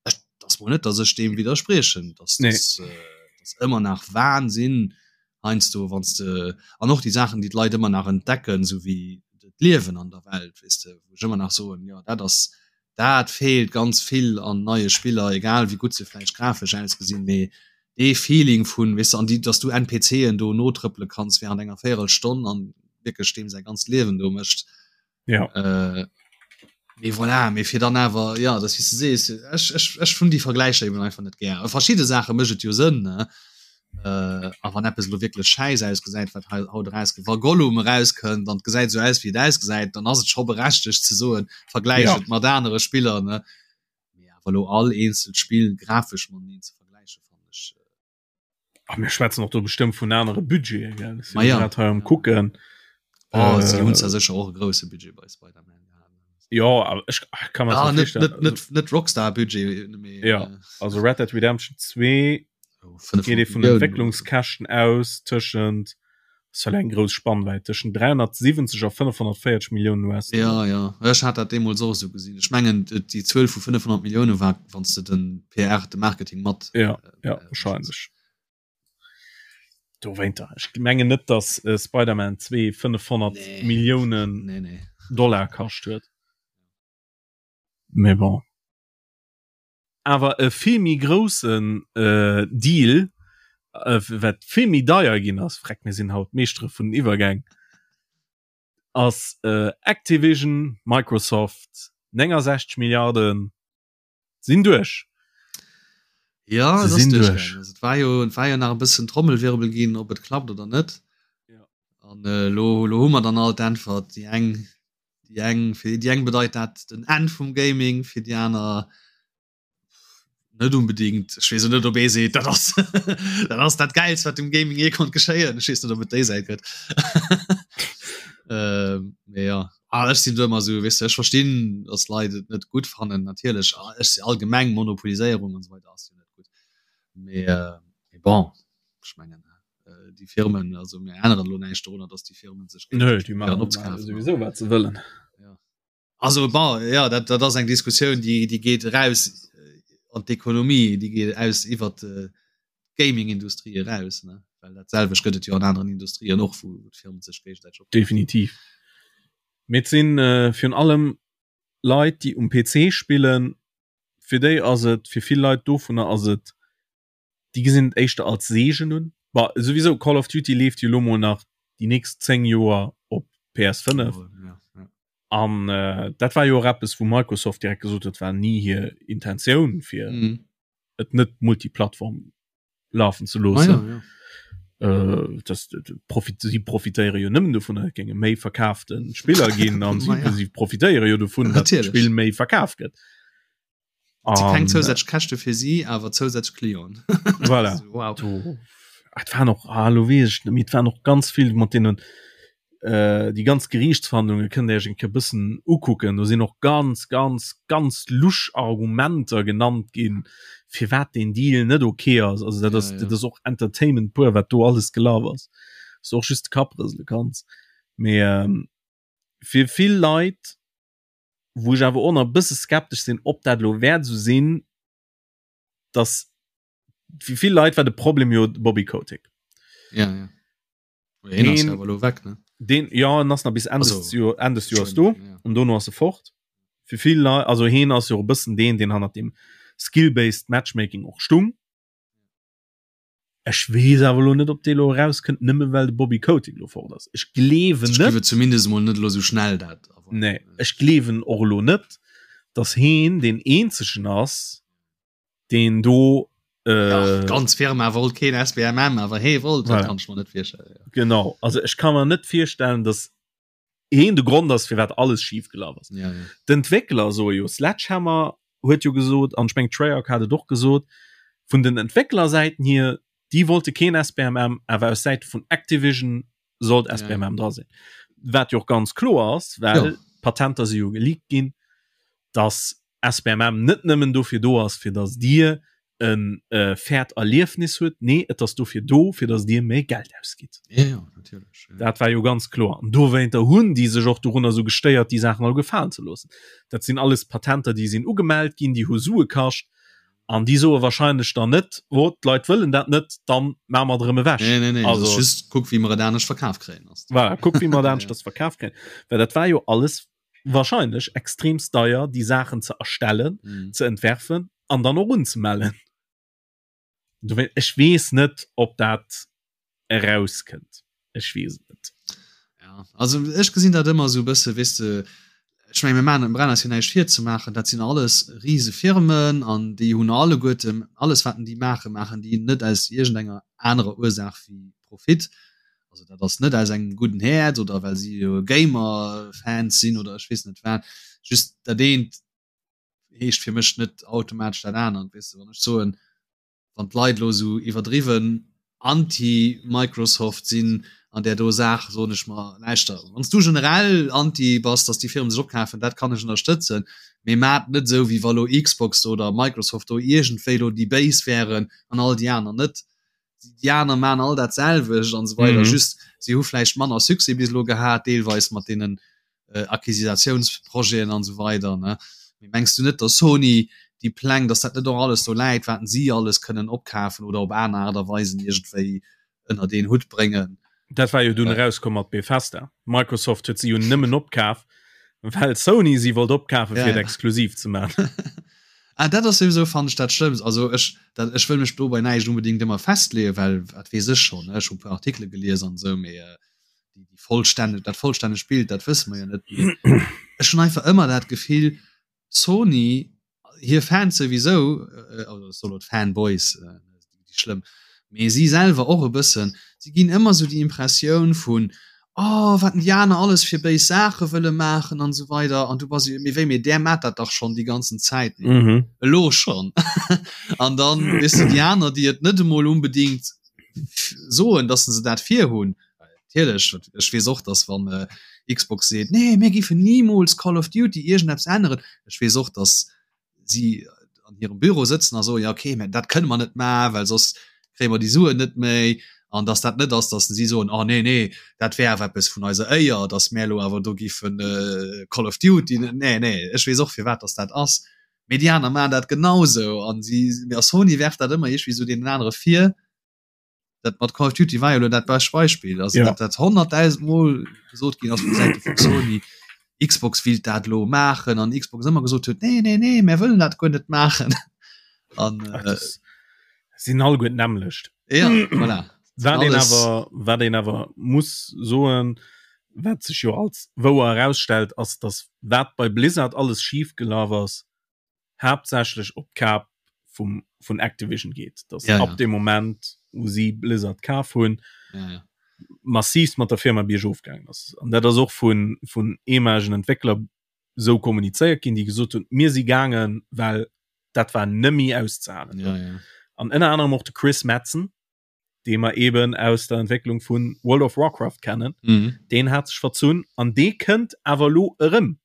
ech, dat ass mol net, datt ech deem widderspriechen. Dat
Nee.
ass, äh, dat ass ëmmer nach Wahnsinn heiansdo, wann s de, an och déi Saachen, déi d'Leit ëmmer nach entdecken, esou wéi d'Liewen an der Welt, weess de, wou ech ëmmer nach soen, jo, dat ass. Dat feelt ganz vill an neie Spiller, egal wéi gutt se vläicht grafesch ausgesinn, mee dee Feeling vun, weess de, an déi, dass du NPCen do notrëppele kanns während enger Véierelstonn an wierklech deem säi ganzt Liewen do mécht.
Ja.
Äh, mee voilà, mee fir dann awer, ja, dat wéi s de sees, ech, ech, ech hunn déi Vergläicher eben einfach net gär. A verschidde Saache mécht et jo Sënn, ne? Äh, a wann eppes elo wierklech schäiss ausgesäit, wat hei haut erauskënnt, wa Gollum erauskënnt an et gesäit esou aus, wéi et ausgesäit, dann ass et scho berechtegt ze soen, vergläich
Ja.
et mat anere Spiller, ne? Mee awer elo all eenzelt Spill grafesch mateneen ze vergläichen, fannen ech.
A mir schwätzen och do bestëmmt vun anere Budgete, gell? Ech
Ma
sinn
ja.
grad hei am kucken.
Oh, si hunn
Äh,
zwar sécher och e grousse Budget bei Spider-Man gehat.
ja, awer ech ach, kann mir
Ah,
dat
net,
virstellen.
net, net, net Rockstar-Budget, mee
Ja.
äh,
Also Red Dead Redemption 2
oh,
geet ee
500
vun
Milliounen oder so.
Entwécklungskäschten aus tëschent ass well eng grouss Spannwäit tëschent 370 a 540 Milliounen
Ja,
US-Dollar.
ja, ech hat dat deemools och esou gesinn. Ech mengen, déi Zuel vu 500 Millioune war, wann s de den PR, de Marketing mat
Ja, ja,
äh, rechens.
wahrscheinlech. Dowéinter, ech mengen net, datt äh, Spider-Man 2 500
Nee.
Milliounen
Nee, nee.
Dollar kascht huet. Mee bon. Awer e vill méi groussen äh, Deal, äh, wat vill méi deier ginn ass, freck, mir sinn haut Meeschtere vun den Iwwergäng, ass äh, Activision, Microsoft, 69 Milliarden sinn duerch.
Ja,
Se
et ass
sinn duerch.
duerchgaangen. Also, et war jo, et war jo nach e bëssen Trommelwirbel ginn, ob et klappt oder net.
Ja.
An äh, lo, lo hu mer dann all d'Äntwert. Déi eng, déi eng, fir déi eng bedeit dat den Enn vum Gaming, fir déi aner net unbedingt. Ech weess och net, ob ee seet, dat ass, dat ass dat Gäilst, wat dem Gaming jee konnt geschéien. Ech weess net, ob et déi Säit gëtt. Ähm, mee ja. Ah, ech sinn do ëmmer esou, weess de, ech verstinn, datt Leit et net gutt fannen, natierlech. Ah, ech si allgemeng Monopoliséierung an esou weider ass jo net gutt. Mee, äh, mee bon, ech mengen, äh, déi Firmen, also mir änneren elo näischt dorunner, datt déi Firmen sech
Nö,
géigesäiteg
déi
probéieren
maachen
opzekafen.
souwisou wat se wëllen.
Ja. Also bon, ja, dat, dat ass eng Diskussioun, déi, déi geet eraus äh, an d'Ekonomie, déi geet aus iwwer d'Gaming-Industrie eraus, ne? Well dat selwecht gëtt et jo an aneren Industrien och, wou d'Firmen sech géigesäiteg opkaufen.
Definitiv. Mee et sinn äh, virun allem Leit, déi um PC spillen, fir déi ass et, fir vill Leit dovunner ass et déi gesinn et éischter als Seegen un. Bah, souwisou Call of Duty leeft jo lo mol nach déi nächst 10 Joer op PS5.
Ja, ja.
An äh, dat war jo och eppes, wou Microsoft direkt gesot huet, war ni hir Intentioun fir
Mhm.
et net multiplattform lafen ze
Ah,
loossen.
ja, ja.
Äh, das, profit, si profitéiere jo nëmmen dovun, et géinge méi verkaafte Spiller ginn an si,
Ma ja.
si profitéiere jo dovun, datt
Natierlech.
d'Spill méi verkaf gëtt.
Si keng
An,
zousätzlech Käschte fir si, awer zousätzlech Clienten.
Voilà.
Wow.
Do, ah, et waren och, ah, lo weess ech net méi, et waren och ganz vill mat deenen, äh, déi ganz Geriichtsverhandlunge kënnt Dir Iech eng Kéier bëssen ukucken. Do sinn och ganz, ganz, ganz lusch Argumenter genannt ginn, firwat deen Deal net ok ass. Also dat ass,
Ja, ja.
dat ass och Entertainment pur, wat do alles gelaf ass. Wou s du och just de Kapp rësele kanns. Mee ähm, fir vill Leit wou ech awer och nach e bësse skeptesch sinn, ob dat elo wäert esou sinn, dass fir vill Leit war de Problem jo de Bobby Kotick.
Ja, ja. Deen ass awer elo weg, ne?
Deen, ja, en ass nach bis Enn des Joer, Enn des Joers do,
ja.
an dono ass e fort. Fir vill Leit, also heen ass jo e bëssen deen, deen hannert dem Skill-based Matchmaking och stung. Ech weess awer elo net, ob dee elo erauskënnt, nëmme well de Bobby Kotick elo fort ass. Ech gleewen
Ech
net.
gleewen zumindest emol net elo esou schnell dat.
Nee, ech gleewen och elo net, datt heen deen eenzegen ass, deen do.
Äh, D'ganz Firma wollt keen SBMM, awer hee wollt. Dat kann ech mer net virstellen.
Genau, also ech ka mer net virstellen, datt heen de Grond ass firwat alles schief gelaf ass.
Ja, ja.
D'Entwéckler soe jo, Sledgehammer huet jo gesot, an ech meng Treyarch hat et och gesot, vun den Entwécklersäiten hier, déi wollte keen SBMM, awer aus Säite vun Activision sollt SBMM dra sinn. Wat jo och ganz kloer ass, well
Ja.
d'Patenter si jo geleakt ginn, dass SBMM net nëmmen dofir do ass, fir dass Dir e fairt Erliefnis huet, nee, et ass dofir do, fir dass Dir méi Geld ausgitt.
Ja, ja, natierlech. Ja.
Dat war jo ganz kloer. An dowéinter hunn déi sech och dorunner esou gestéiert, déi Saachen all gefalen ze loossen. Dat sinn alles Patenter, déi sinn ugemellt ginn, déi hu Sue kascht. An déi soe wahrscheinlech dann net, oh, d'Leit wëllen dat net, dann maache mer et erëm ewech.
Nee, nee, nee,
Also,
just kuck, wéi mer et anescht verkaf kréien.
Voilà, kuck, wéi mer et aneschters verkaf kréien. Well dat war jo alles. wahrscheinlech extremst deier déi Saachen ze erstellen, mm. ze entwerfen an dann och unzemellen. Ech weess net, ob dat erauskënnt. Ech weess et net.
Ja, also ech gesinn dat ëmmer esou e bësse, weess de, ech menge mir maachen, brauchen eis jo näischt virzemaachen, dat sinn alles rise Firmen an déi hunn alleguerten, alles wat déi maachen, maachen déi net aus iergendenger anerer Ursaach wéi Profit. Also dat ass net aus engem gudden Häerz oder well si jo Gamer-Fans sinn oder ech weess net wat. Just dat eent heescht fir mech net automatesch dat anert, weess de, wann ech soen, wann d'Leit elo esou iwwerdriwwen anti-Microsoft sinn an där do Saach, soen ech mer, lauschter, wann s du generell anti bass, datt déi Firmen sech opkafen, dat kann ech ënnerstëtzen, mee maat net esou, wéi wa lo Xbox oder Microsoft do iergendwéi lo déi Béis wären an all déi aner net. Déi aner maan all dat selwecht an esou weider, just si hu vläicht manner Succès bis elo gehat, deelweis mat deenen Acquisitiounsprojeten an esou weider ne. Mee mengs du net, datt Sony déi Pläng, datt dat net och alles do läit, wat si alles kënnen opkafen oder op aner Aart a Weisen iergendwéi ënnert een Hutt bréngen?
Dat war jo dunn erauskomm mat Bethesda. Microsoft huet si jo nëmmen opkaf, well Sony si wollt opkafen, fir et exklusiv ze maachen.
Ah, dat ass souwisou, fannen ech, dat Schlëmmst. Also ech, dat, ech wëll mech do bei näischt unbedéngt ëmmer festleeën, well wat weess ech schonn, ne? Ech hu e puer Artikele gelies an esou, mee déi, déi vollstänneg, dat vollstännegt Bild, dat wësse mer jo net. Mee ech hunn einfach ëmmer dat Gefill, Sony, hir Fans souwisou, also ech soe lo d'Fanboys, déi schlëmm, mee si selwer och e bëssen, si ginn ëmmer esou déi Impressioun vun, oh wat déi aner alles fir béis Saache wëlle maachen an esou weider an du bass esou, mee wéi, mee där maacht dat dach schonn déi ganzen Zäit, elo schonn. An dann, weess de, déi aner, déi et net emol unbedingt soen, dass se dat virhunn, Natierlech, ech weess och, dass wann Xbox seet, nee mir géifen nimools Call of Duty iergendeppes änneren, ech weess och, dass si an hirem Büro sëtzen a soen, ja okay, mä dat kënne mer net maachen, well soss kréie mer déi Suen net méi. An dass dat net ass, dass si soen, oh nee, nee, dat wär awer eppes vun eiser Éier, dass mär elo awer do géifen Call of Duty, nee, nee, ech weess och firwat dass dat ass. Mee déi aner maachen dat genausou an si, a Sony werft dat ëmmer iergendwéi esou deenen anere vir. Dat mat Call of Duty war jo lo dat bescht Beispill. Also ja. dat dat 100.000 Mol gesot ginn ass vu Säite vu Sony, Xbox willt dat lo maachen an Xbox ëmmer gesot huet, nee, nee, nee, mär wëllen dat guer net maachen.
An äh, sinn all guer d'nämmlecht.
Ja, voilà.
Wat een awer, wat een awer muss soen, wat sech jo als wouer erausstellt, ass, dass wat bei Blizzard alles schif gelaf ass, haaptsächlech op d'Kap vum vun Activision geet, dass ja, ab ja. dem Moment wou si Blizzard kaf hunn ja, ja. massiv mat der Firma biergof gaangen ass. An dat ass och vun vun ehemaligen Entwéckler sou kommunizéiert ginn, déi gesot hunn, mir si gaangen, well dat war nëmmi auszehalen.
Ja, ja.
An ënner anerem och de Chris Metzen, dee mer eben aus der Entwécklung vun World of Warcraft kennen,
mhm.
deen hat sech verzunn an dee kënnt awer lo erëm.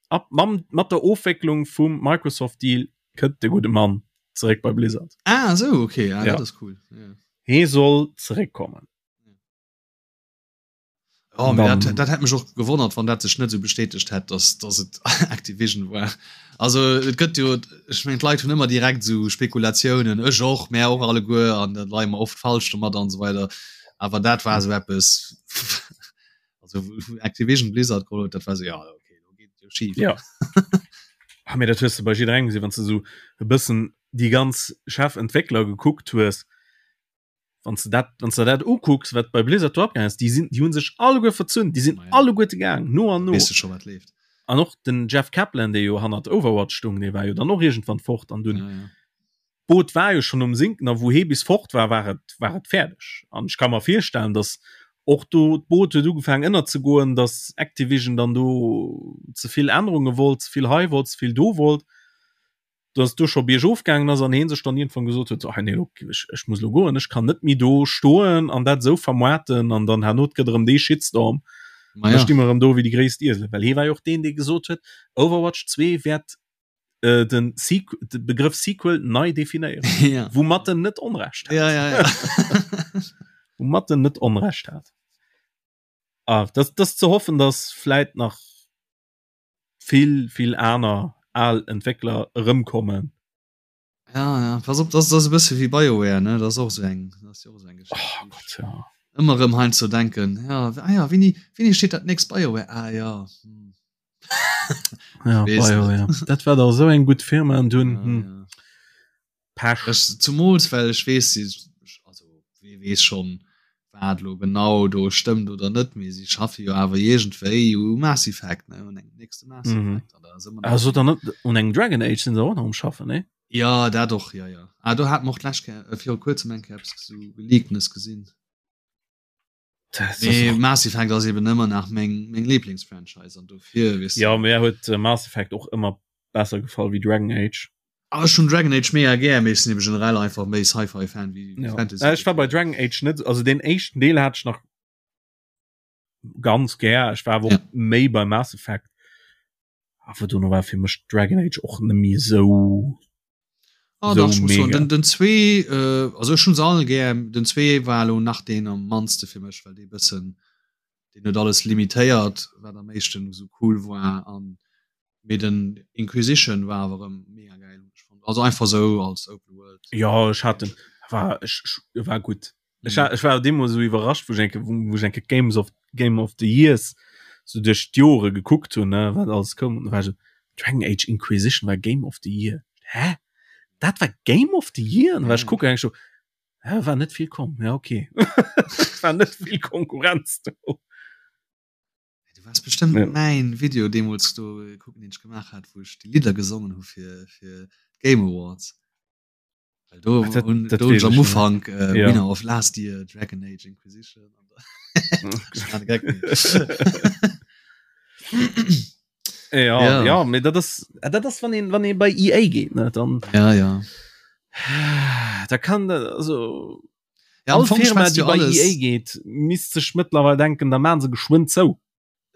Ab mam mat der Ofwécklung vum Microsoft Deal kënnt de gudde Mann zeréck bei Blizzard.
Ah esou okay, ah, ja. dat ass cool.
Ja. Hee soll zeréckkommen.
Oh, dann, dat, dat hätt mech och gewonnert, wann dat sech net sou bestätegt hätt, dass, dass et Activision war. Also et gëtt jo ech mengen d'Leit hunn ëmmer direkt sou Spekulatiounen, ech och, mär och alleguer an dat leie mer oft falsch domat an esou weider. Awer dat war sou eppes Also Activision Blizzard geholl huet, dat war so, ja okay, do geet et jo
schif. Ja. ah, mee dat hues de bei jidderengem gesinn, wann s de sou e bëssen déi ganz Chefentwéckler gekuckt hues, wann s de dat, wann s de dat ukucks, wat bei Blizzard do abgaangen ass, déi sinn, déi hu sech alleguer verzunn, déi sinn alleguerte gaang, no an no.
Weess de scho wat leeft.
An och den Jeff Kaplan, dee jo hannert Overwatch stung, dee war jo dann och iergendwann fort an dunn.
Ja, ja.
D'Boot war jo schonn um Sinken a wou hee bis fort war, war et, war et fäerdeg. An ech ka mer virstellen, datt och do d'Boot huet ugefaangen ënnerzegoen, datt Activision dann do ze vill Ännerunge wollt, ze vill hei wollt, ze vill do wollt, datt et do scho biergof gaangen ass an hee sech dann iergendwann gesot huet, so hei nee, lo, ech, ech muss lo goen, ech kann net méi do stoen an dat esou vermoarten an dann herno et gëtt erëm dee Shitstorm.
Ma ja.
Da sti mer erëm do wéi déi gréisst Ieselen. Well hee war jo och deen, dee gesot huet, Overwatch 2 wäert äh, den Sequ de Begrëff Sequel nei definéieren.
ja.
Woumat en net Onrecht
hat. Ja, ja, ja.
Woumat en net Onrecht hat. Ah, das, das ze hoffen, dass vläit nach vill, vill aner al Entwéckler erëmkommen.
Ja, ja. Pass op, das, das e bësse wéi BioWare, ne? Das och so eng, das jo och so eng
Geschicht. Oh Gott, ja.
Ëmmer erëm heiansdo denken, ja, ah ja, wéini, wéini steet dat nächst BioWare? Ah ja. Hm.
Ja, BioWare. Dat war da sou eng gutt Firma an dunn. Ja, hm. ja.
Pech. Ech, zumools well ech weess, si, also wee weess schonn, wat elo genau do stëmmt oder net, mee si schaffe jo awer iergendwéi u Mass Effect, ne, un engem nächste Mass
mhm. Effect. An da si mer Also dann net un engem Dragon Age sinn se och nach um schaffen, ne?
Ja, dat och, ja, ja. Ah, do hat mer och d'lescht Kéier, äh, viru kuerzem eng Kéier eppes sou Geleaktes gesinn. Nee, Mass Effect ass eben ëmmer nach meng, meng Lieblingsfranchise an dofir
weess Ja, mir huet äh, Mass Effect och ëmmer besser gefall wéi Dragon Age.
Ah, ech hunn Dragon Age mega gär, mee ech sinn eben generell einfach méi Sci-Fi-Fan wéi
ja. Fantasy. Äh, ech war bei Dragon Age net, also den éischten Deel hat ech nach ganz gär. Ech war awer ja. méi bei Mass Effect. Awer dono war fir mech Dragon Age och net méi sou
Ah, so dach, muss soen, den, den zwee äh, also ech hunn se all gär, den zwee war lo nach deen am mannste fir mech, well dee bëssen deen huet alles limitéiert, wat am éischten esou cool war an mee den Inquisition war awer erëm mega gäil hunn ech fonnt. Also einfach sou als Open
World. Ja ech hat den war ech, ech war gutt. Ech, ech war deemools sou iwwerrascht, wou ech enke wou ech enke Games of Game of the Years sou duerch d'Jore gekuckt hunn, ne, wat alles koum. An da war ech sou, Dragon Age Inquisition war Game of the Year. Hä? Dat war Game of the Year? An da war ech kucken, eng ech sou, hä, war net vill komm. Ja, okay. war net vill Konkurrenz do.
Du wars bestëmmt ja. mäin Video deemools do kucken, deen ech gemaach hat, wou ech déi Lidder gesongen hu fir fir d'Game Awards. Well do Ach, dat, hun, dat do hun am Ufank äh, ja. Winner of Last Year Dragon Age Inquisition.
ja, ja. ja mee dat ass äh, dat ass wann een wann een bei EA geet ne dann
ja ja
da kann also ja, all Firma déi bei EA geet misst sech mëttlerweil denken da maan se geschwënn zou.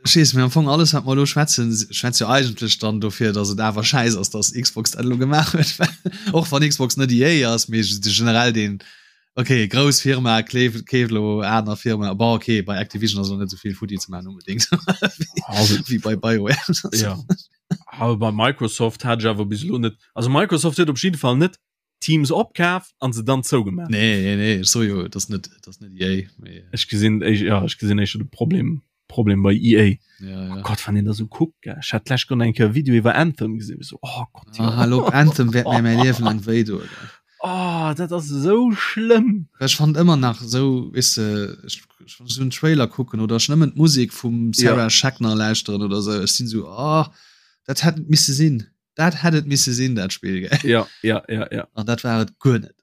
Ech weess, mee am Fong alles wat mer elo schwätzen, schwätzt jo eigentlech dann dofir, datt et awer schäiss ass, datt Xbox dat elo gemaach huet, well och wann Xbox net EA ass, mee generell deen, okay, grouss Firma kleeft, keeft elo aner Firma, bon okay, bei Activision ass elo net esou vill futti ze maachen onbedéngt wéi bei BioWare.
Ja, awer bei Microsoft hat ech awer bis elo net, also Microsoft huet op jidde Fall net Teams opkaf an se dann zougemaach.
Nee, nee, nee, ech so jo, das net das net EA.
Mee, Ech gesinn ech, ja, ech gesinn éischter de Problem Problem bei EA.
ja, ja.
Oh Gott, wann een da sou kuckt, gell. Ech hat d'lescht Woch eng Kéier e Video iwwer Anthem gesinn, so oh
Gott, ja. Ah, hallo, Anthem wäert mir mäi Liewen laang wéi doen.
Oh, dat ass esou schlëmm.
Ech fand ëmmer nach esou, weess de, ech, ech wann ech esou en Trailer kucken oder ech nëmmen d'Musek vum Sarah ja. Schachner lauschteren oder sou, ech sinn esou, oh, dat hätt net misse sinn. Dat hätt et misse sinn, dat Spill,
gell? Ja, ja, ja, ja.
An dat war et guer net.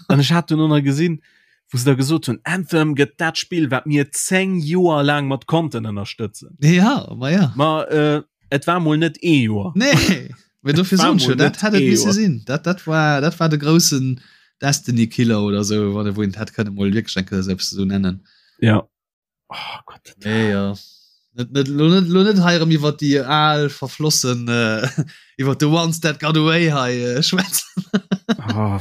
An ech hat dunn och nach gesinn, wou se da gesot hunn, Anthem gëtt dat Spill, wat mir 10 Joer laang mat Content ënnerstëtzen.
Ja, ma ja.
Ma äh, et war mol net ee Joer.
Nee, mee dofir soen ech jo, dat hätt et misse sinn. Dat, dat war, dat war de groussen Destiny-Killer oder sou, wann e wou een hätt kënne mol wierklech eng Kéier esou eppes esou nennen.
Ja.
Oh Gott. Nee, ja. Net, net, lo net, lo net hei erëm iwwer déi al verflossen äh, iwwer the ones that got away hei äh, schwätzen.
oh,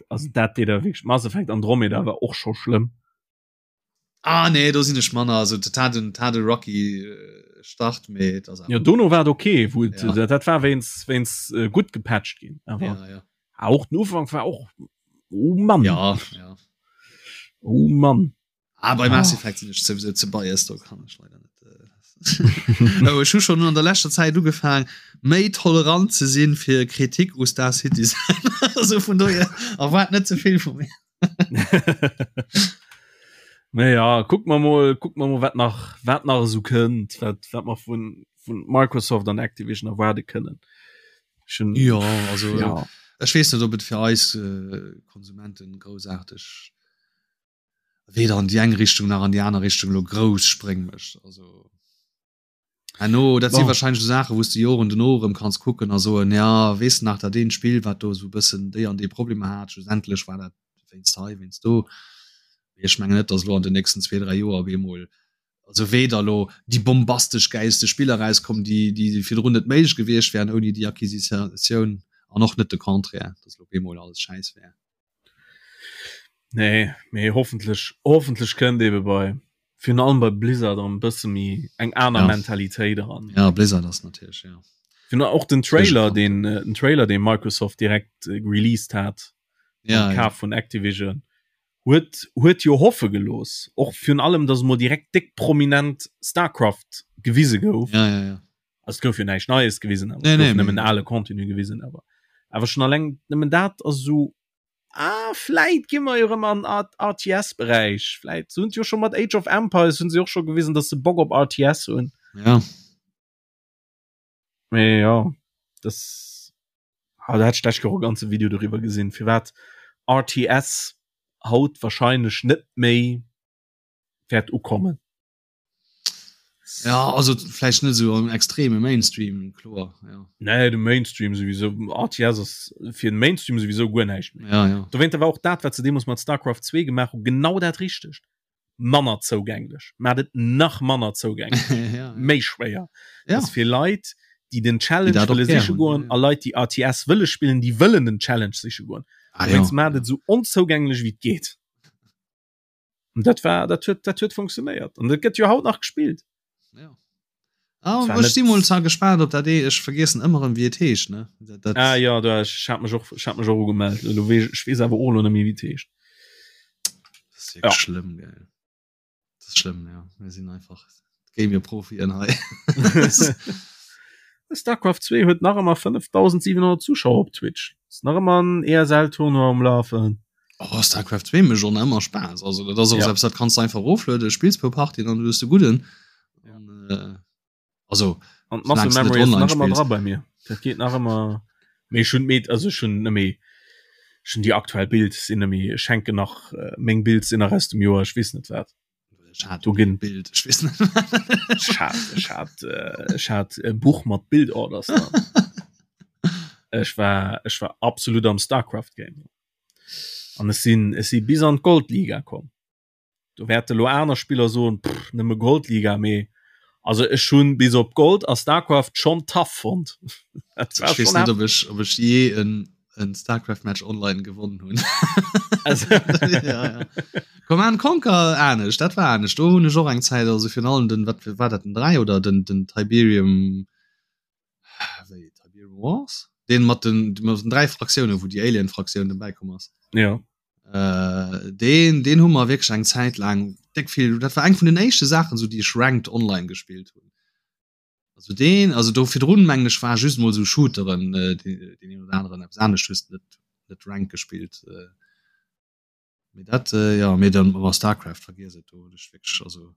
also dat deet der wierklech Mass Effect Andromeda war och scho schlëmm.
Ah nee, do sinn ech manner also dat hat en hat e rocky äh, Start mee
et ass Ja dono war et okay, wou et, ja. dat war wéinst wéinst äh, gutt gepatcht ginn. Awer ja, ja. auch den Ufank war och oh Mann.
Ja, ja.
Oh Mann.
Ah, bei Mass Effect sinn ech souwisou ze biased, do kann ech leider net. Äh, oh, ech hu schon an der leschter Zäit ugefaang, méi tolerant ze sinn fir Kritik u Star Citizen. also vun dohier erwaart net ze vill vu mir.
Naja, guck mer mol, guck mer mol, wat nach, wat nach esou kënnt, wat, wat mer vun, vun Microsoft an Activision erwaarde kënnen.
Schon, ja, also ja. ech weess net, ob et fir eis äh, Konsumenten groussaarteg weder an déi eng Richtung nach an déi aner Richtung elo grouss Spréng mécht. Also herno, dat si wahrscheinlech esou Saachen, wou s de Joren dono erëm kanns kucken a soen, ja, weess de nach dat eent Spill, wat do esou e bëssen déi an déi Problemer hat, schlussendlech war dat wéinst hei, wéinst do. Mee ech mengen net, datt elo an den nächsten zwee, dräi Joer op eemol, also weder elo déi bombastesch gäilste Spiller erauskommen, déi, déi virdrun net méiglech gewiescht wären ouni déi Acquisitioun, an och net de Contraire, datt elo op eemol alles schäiss wär.
Nee, mee hoffentlech hoffentlech kënnt ebe bei virun allem bei Blizzard erëm e bësse méi eng aner
ja.
Mentalitéit eran.
Ja, Blizzard ass natierlech ja.
Virun och den Trailer den äh, den Trailer den Microsoft direkt äh, released hat
ja,
Kaf ja. vun Activision. Huet huet jo hoffe gelooss, och virun allem, datt emol direkt déck prominent Starcraft gewise gouf.
Ja, ja, ja.
Also et gouf jo näischt Neies gewisen, awer nee, nee, nëmmen ale Contenu gewisen, awer awer schon alleng nëmmen dat ass esou ah, vläit gi mer jo erëm an RTS-Beräich. Vläit se hunn jo scho mat Age of Empires hunn se och scho gewisen, datt se Bock op RTS hunn.
Ja.
Mee ja, das ah, da hat ech d'lescht Joer e ganze Video doriwwer gesinn, firwat RTS haut wahrscheinlech net méi wäert ukommen.
Ja, also vläicht net esou am extreme Mainstream, kloer, ja.
Nee, de Mainstream souwisou, RTS ass fir den Mainstream souwisou guer näischt
méi. Ja, ja.
Dowéinter war och dat, wat se deemools mat StarCraft 2 gemaach hu, genau dat Richtegt. manner zougänglech mat et nach manner zougänglech
ja, ja.
méi schwéier
ja.
fir Leit déi den Challenge wëlle siche goen a Leit déi RTS wëlle spillen déi wëllen den Challenge siche goen
ah, ja.
mat et sou onzougänglech wéi et geet und dat war dat huet dat huet funktionéiert an dat gëtt jo haut nach gespillt
ja. Ah, ech si mol zwar gespaant op dat ee ech vergiessen ëmmer erëm wéi et heescht ne
dat, dat ah, ja da ech hat mech och ech hat mech och ugemellt elo weess ech weess awer och elo net méi wéi et heescht
Das ist ja. schlimm gell das ist schlimm ja wir sinn einfach Gamer-Profien hei
Starcraft 2 huet nach ëmmer 5700 Zuschauer op Twitch ist nach ëmmer en ESL Tournoi um Lafen
Oh, Starcraft 2 mécht och nach ëmmer Spaass. Also dat ass och ja. eppes, dat kanns du einfach eroflueden, spills puer Partien an du hues de gudden.
Ja.
An, äh, also
an d'Muscle Memory ass nach ëmmer dra bei mir. Dat geet nach ëmmer. Mee ech hunn d'Meet, also ech hunn net méi, ech hunn déi aktuell Builds sinn net méi, ech hänken nach, äh, meng Builds sinn nach aus dem Joer, ech weess net wat.
Ech hat
Do ginn
Bild, ech weess net.
Ech hat, ech hat, äh, ech hat e Buch mat Build Orders dran. Ech war, ech war absolut am Starcraft Game. An ech sinn, ech si bis an d'Goldliga komm. Do wäerte lo aner Spiller soen, pff, nëmme Goldliga, mee also ech hunn bis op Gold a Starcraft schonn tough fonnt.
Dat war
Ech
weess
schonn
net, ob ech, ob ech jee en, en Starcraft-Match online gewonnen hunn.
Also,
ja, ja. Command Conquer anescht, dat war anescht. Do hunn ech och eng Zäit, also virun allem den, wat war dat, den 3 oder den, den Tiberium, wéi Tiberium Wars? Deen mat den, mat den 3 Fraktiounen, wou déi Alien-Fraktioun dobäi komm ass.
ja.
Äh, deen, deen hu mer wierklech eng Zäit laang déck vill, dat war eng vun den éischte Saachen, sou déi ech ranked online gespillt hunn. Also deen, also do virdrun mengen ech war just mol sou Shooteren, äh, deen, deen een oder aneren eppes anescht hues net, net ranked gespillt. Äh. Mee dat, äh, ja, mee dann war Starcraft, vergiess et, do hunn ech wierklech, also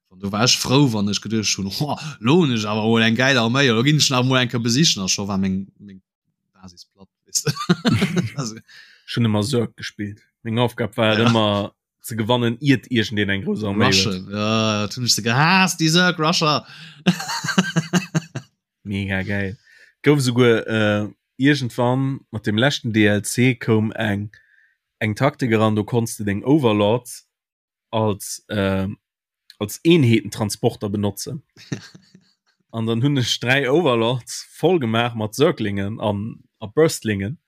wann do war ech frou, wann ech geduecht hunn, ho, lo hunn ech awer mol eng gäil Arméi, lo ginn ech nach mol eng Kéier besichen a scho war meng, meng Basis platt, weess de. Also,
Ech hunn ëmmer Zerg gespillt. Meng Aufgab war et
Ja.
ëmmer ze gewannen, iert iergendeen eng grouss Arméi huet.
Rushen, ja, dat hunn ech se gehaasst, déi Zerg Rusher.
Mega geil. Gouf esouguer äh, iergendwann mat dem leschten DLC koum eng eng Taktik eran, do konns de deng Overlords als äh, als Eenheetentransporter benotzen. An dann hunn ech 3 Overlords voll gemaach mat Zerglingen an a Burstlingen.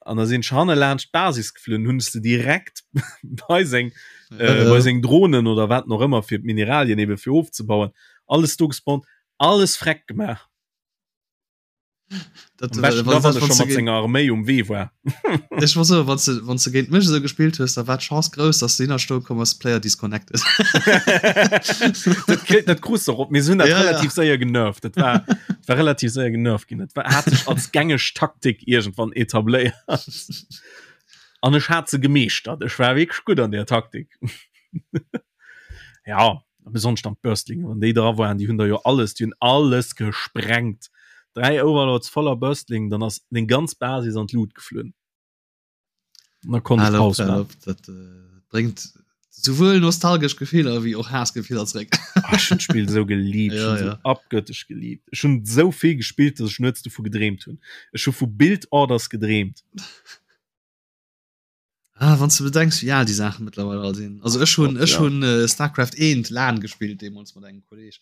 An da sinn ech hanne laanscht d'Basis geflunn, hunn ech se direkt bei seng äh, bei seng Drohnen oder wat noch ëmmer fir d'Mineralien ebe fir ofzebauen, alles do gespawnt, alles freck gemaach.
Dat,
Am beschten
wann,
da, wann
wann
e scho
du
mat
géint,
senger Arméi um Wee war.
ech war so, wann du, wann du géint mech esou gespillt hues, da war d'Chance grouss, dass du hinnerstoe komm ass, Player disconnected.
Dat kritt, dat krus de och op. Mir hunn dat
Ja, ja.
relativ séier genervt. Dat war, dat war relativ séier genervt ginn. Dat war, hat sech als gängeg Taktik iergendwann etabléiert. An ech hat se gemeeschtert. Ech war wierklech gutt an där Taktik. Ja, besonnesch dann d'Burstlinge, wann déi dra waren, déi hunn da jo alles, déi hunn alles gesprengt. 3 Overlords voller Burstling, dann ass deng ganz Basis an d'Lut geflunn. Und da konnt ich Paus
machen. Dat äh, bréngt souwuel nostalgesch Gefiller wéi och Haassgefiller zréck.
Ah, ech hunn d'Spill sou geliebt,
ja,
ja.
ja.
abgöttesch geliebt. Ech hunn sou vill gespillt, dass ech nuets dovu gedreemt hunn. Ech hu vu Build Orders gedreemt.
Ah, wann du bedenks wéi al déi Saachen mittlerweile all sinn. Also ech hunn ech
ja.
hunn äh, Starcraft 1 LAN gespillt deemools mat engem Kolleg.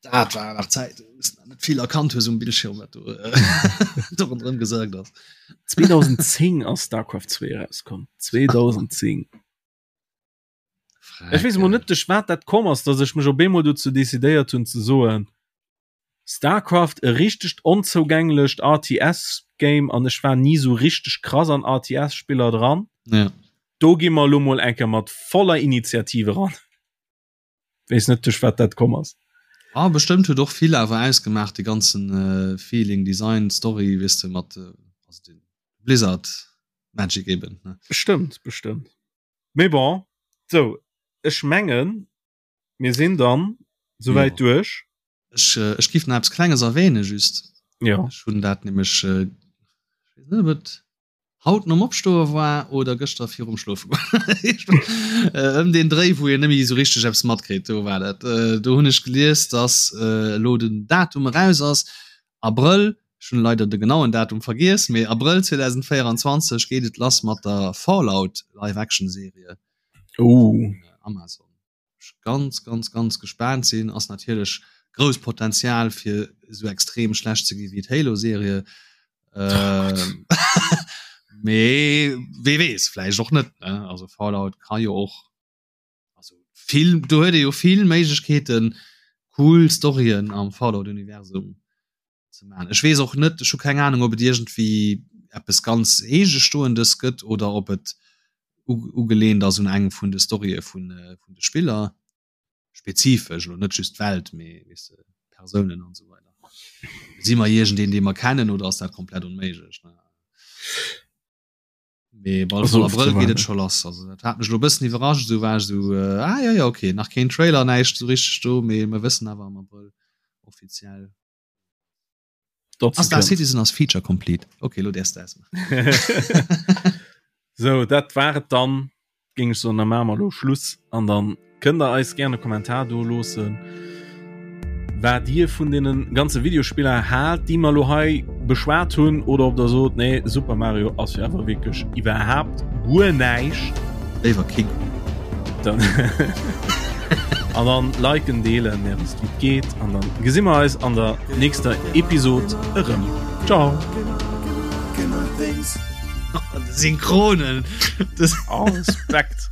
Dat war nach Zäit, wou du net vill erkannt hues um Bildschirm, wat do äh, do ronderëm gesagt ass.
2010 ass Starcraft 2 erauskomm. 2010. Ech weess mol net duerch wat dat komm ass, dass ech mech op eemol dozou decidéiert hunn ze soen, Starcraft e richtegt onzougänglecht RTS Game an ech war ni sou richteg krass an RTS Spiller dran.
Ja.
Do gi mer elo mol eng Kéier mat voller Initiative eran. Weess net duerch wat dat komm ass.
Ah bestëmmt huet och vill awer ausgemaach de ganzen Feeling, Design, Story weess de mat also den Blizzard Magic eben ne.
Bestëmmt, bestëmmt. Mee bon, sou ech mengen mir sinn dann souwäit duerch.
Ech ech giff nach eppes klenges erwähnen just.
Jo.
Ech hunn dat nämlech ech weess net ob et haut nom Opstoe war oder gëschter virum Schlofe goen. Ëm deen Dréi wou een net méi esou richteg eppes matkritt, do war dat. Do hunn ech gelies, dass elo den Datum eraus ass, Abrëll, ech hunn leider de genauen Datum vergiess, mee Abrëll 2024 geet et lass mat der Fallout Live-Action-Serie
vun
Amazon. ech ganz ganz ganz gespaant sinn ass natierlech grouss Potenzial fir esou extrem schlecht ze gi wéi d'Halo Serie äh, mee wee weess vläicht och net ne also Fallout ka jo och also vill do huet ee jo vill Méiglechkeeten cool Storyen am Fallout Universum ze maachen. Ech weess och net, ech hu keng Ahnung, ob et iergendwéi eppes ganz Eegestoendes gëtt oder ob et ugelehnt ass un eng vun de Storye vun vun de Spiller spezifesch, elo net just d'Welt, mee weess de, Persounen an esou weider. Si mer iergendeen, dee mer kennen, oder ass dat komplett onméiglech, ne? Mee bal vun Abrëll geet et scho lass. Also dat hat mech lo bëssen iwwerrascht, esou war ech esou äh, ah ja ja okay, nach keen Trailer, näischt esou richteg do, mee mer wëssen awer am Abrëll offiziell. Ah, Star Citizen ass Feature complete. Okay, lo däerfs de
ausmaachen. Sou, dat war et dann. Géing ech soen, da maache mer elo Schluss an dann kënnt der eis gären e Kommentar do loossen, wat dir vun deene ganze Videospiller haalt, déi mer elo hei beschwat hunn oder ob der sot, nee, Super Mario ass jo awer wierklech iwwerhaapt guer näischt.
Léiwer King
Kong. Dann an dann liken, deelen, Är wësst wéi et geet an dann gesi mer eis an der nächster Episod erëm. Ciao.
Synchronen.
Oh, Respekt.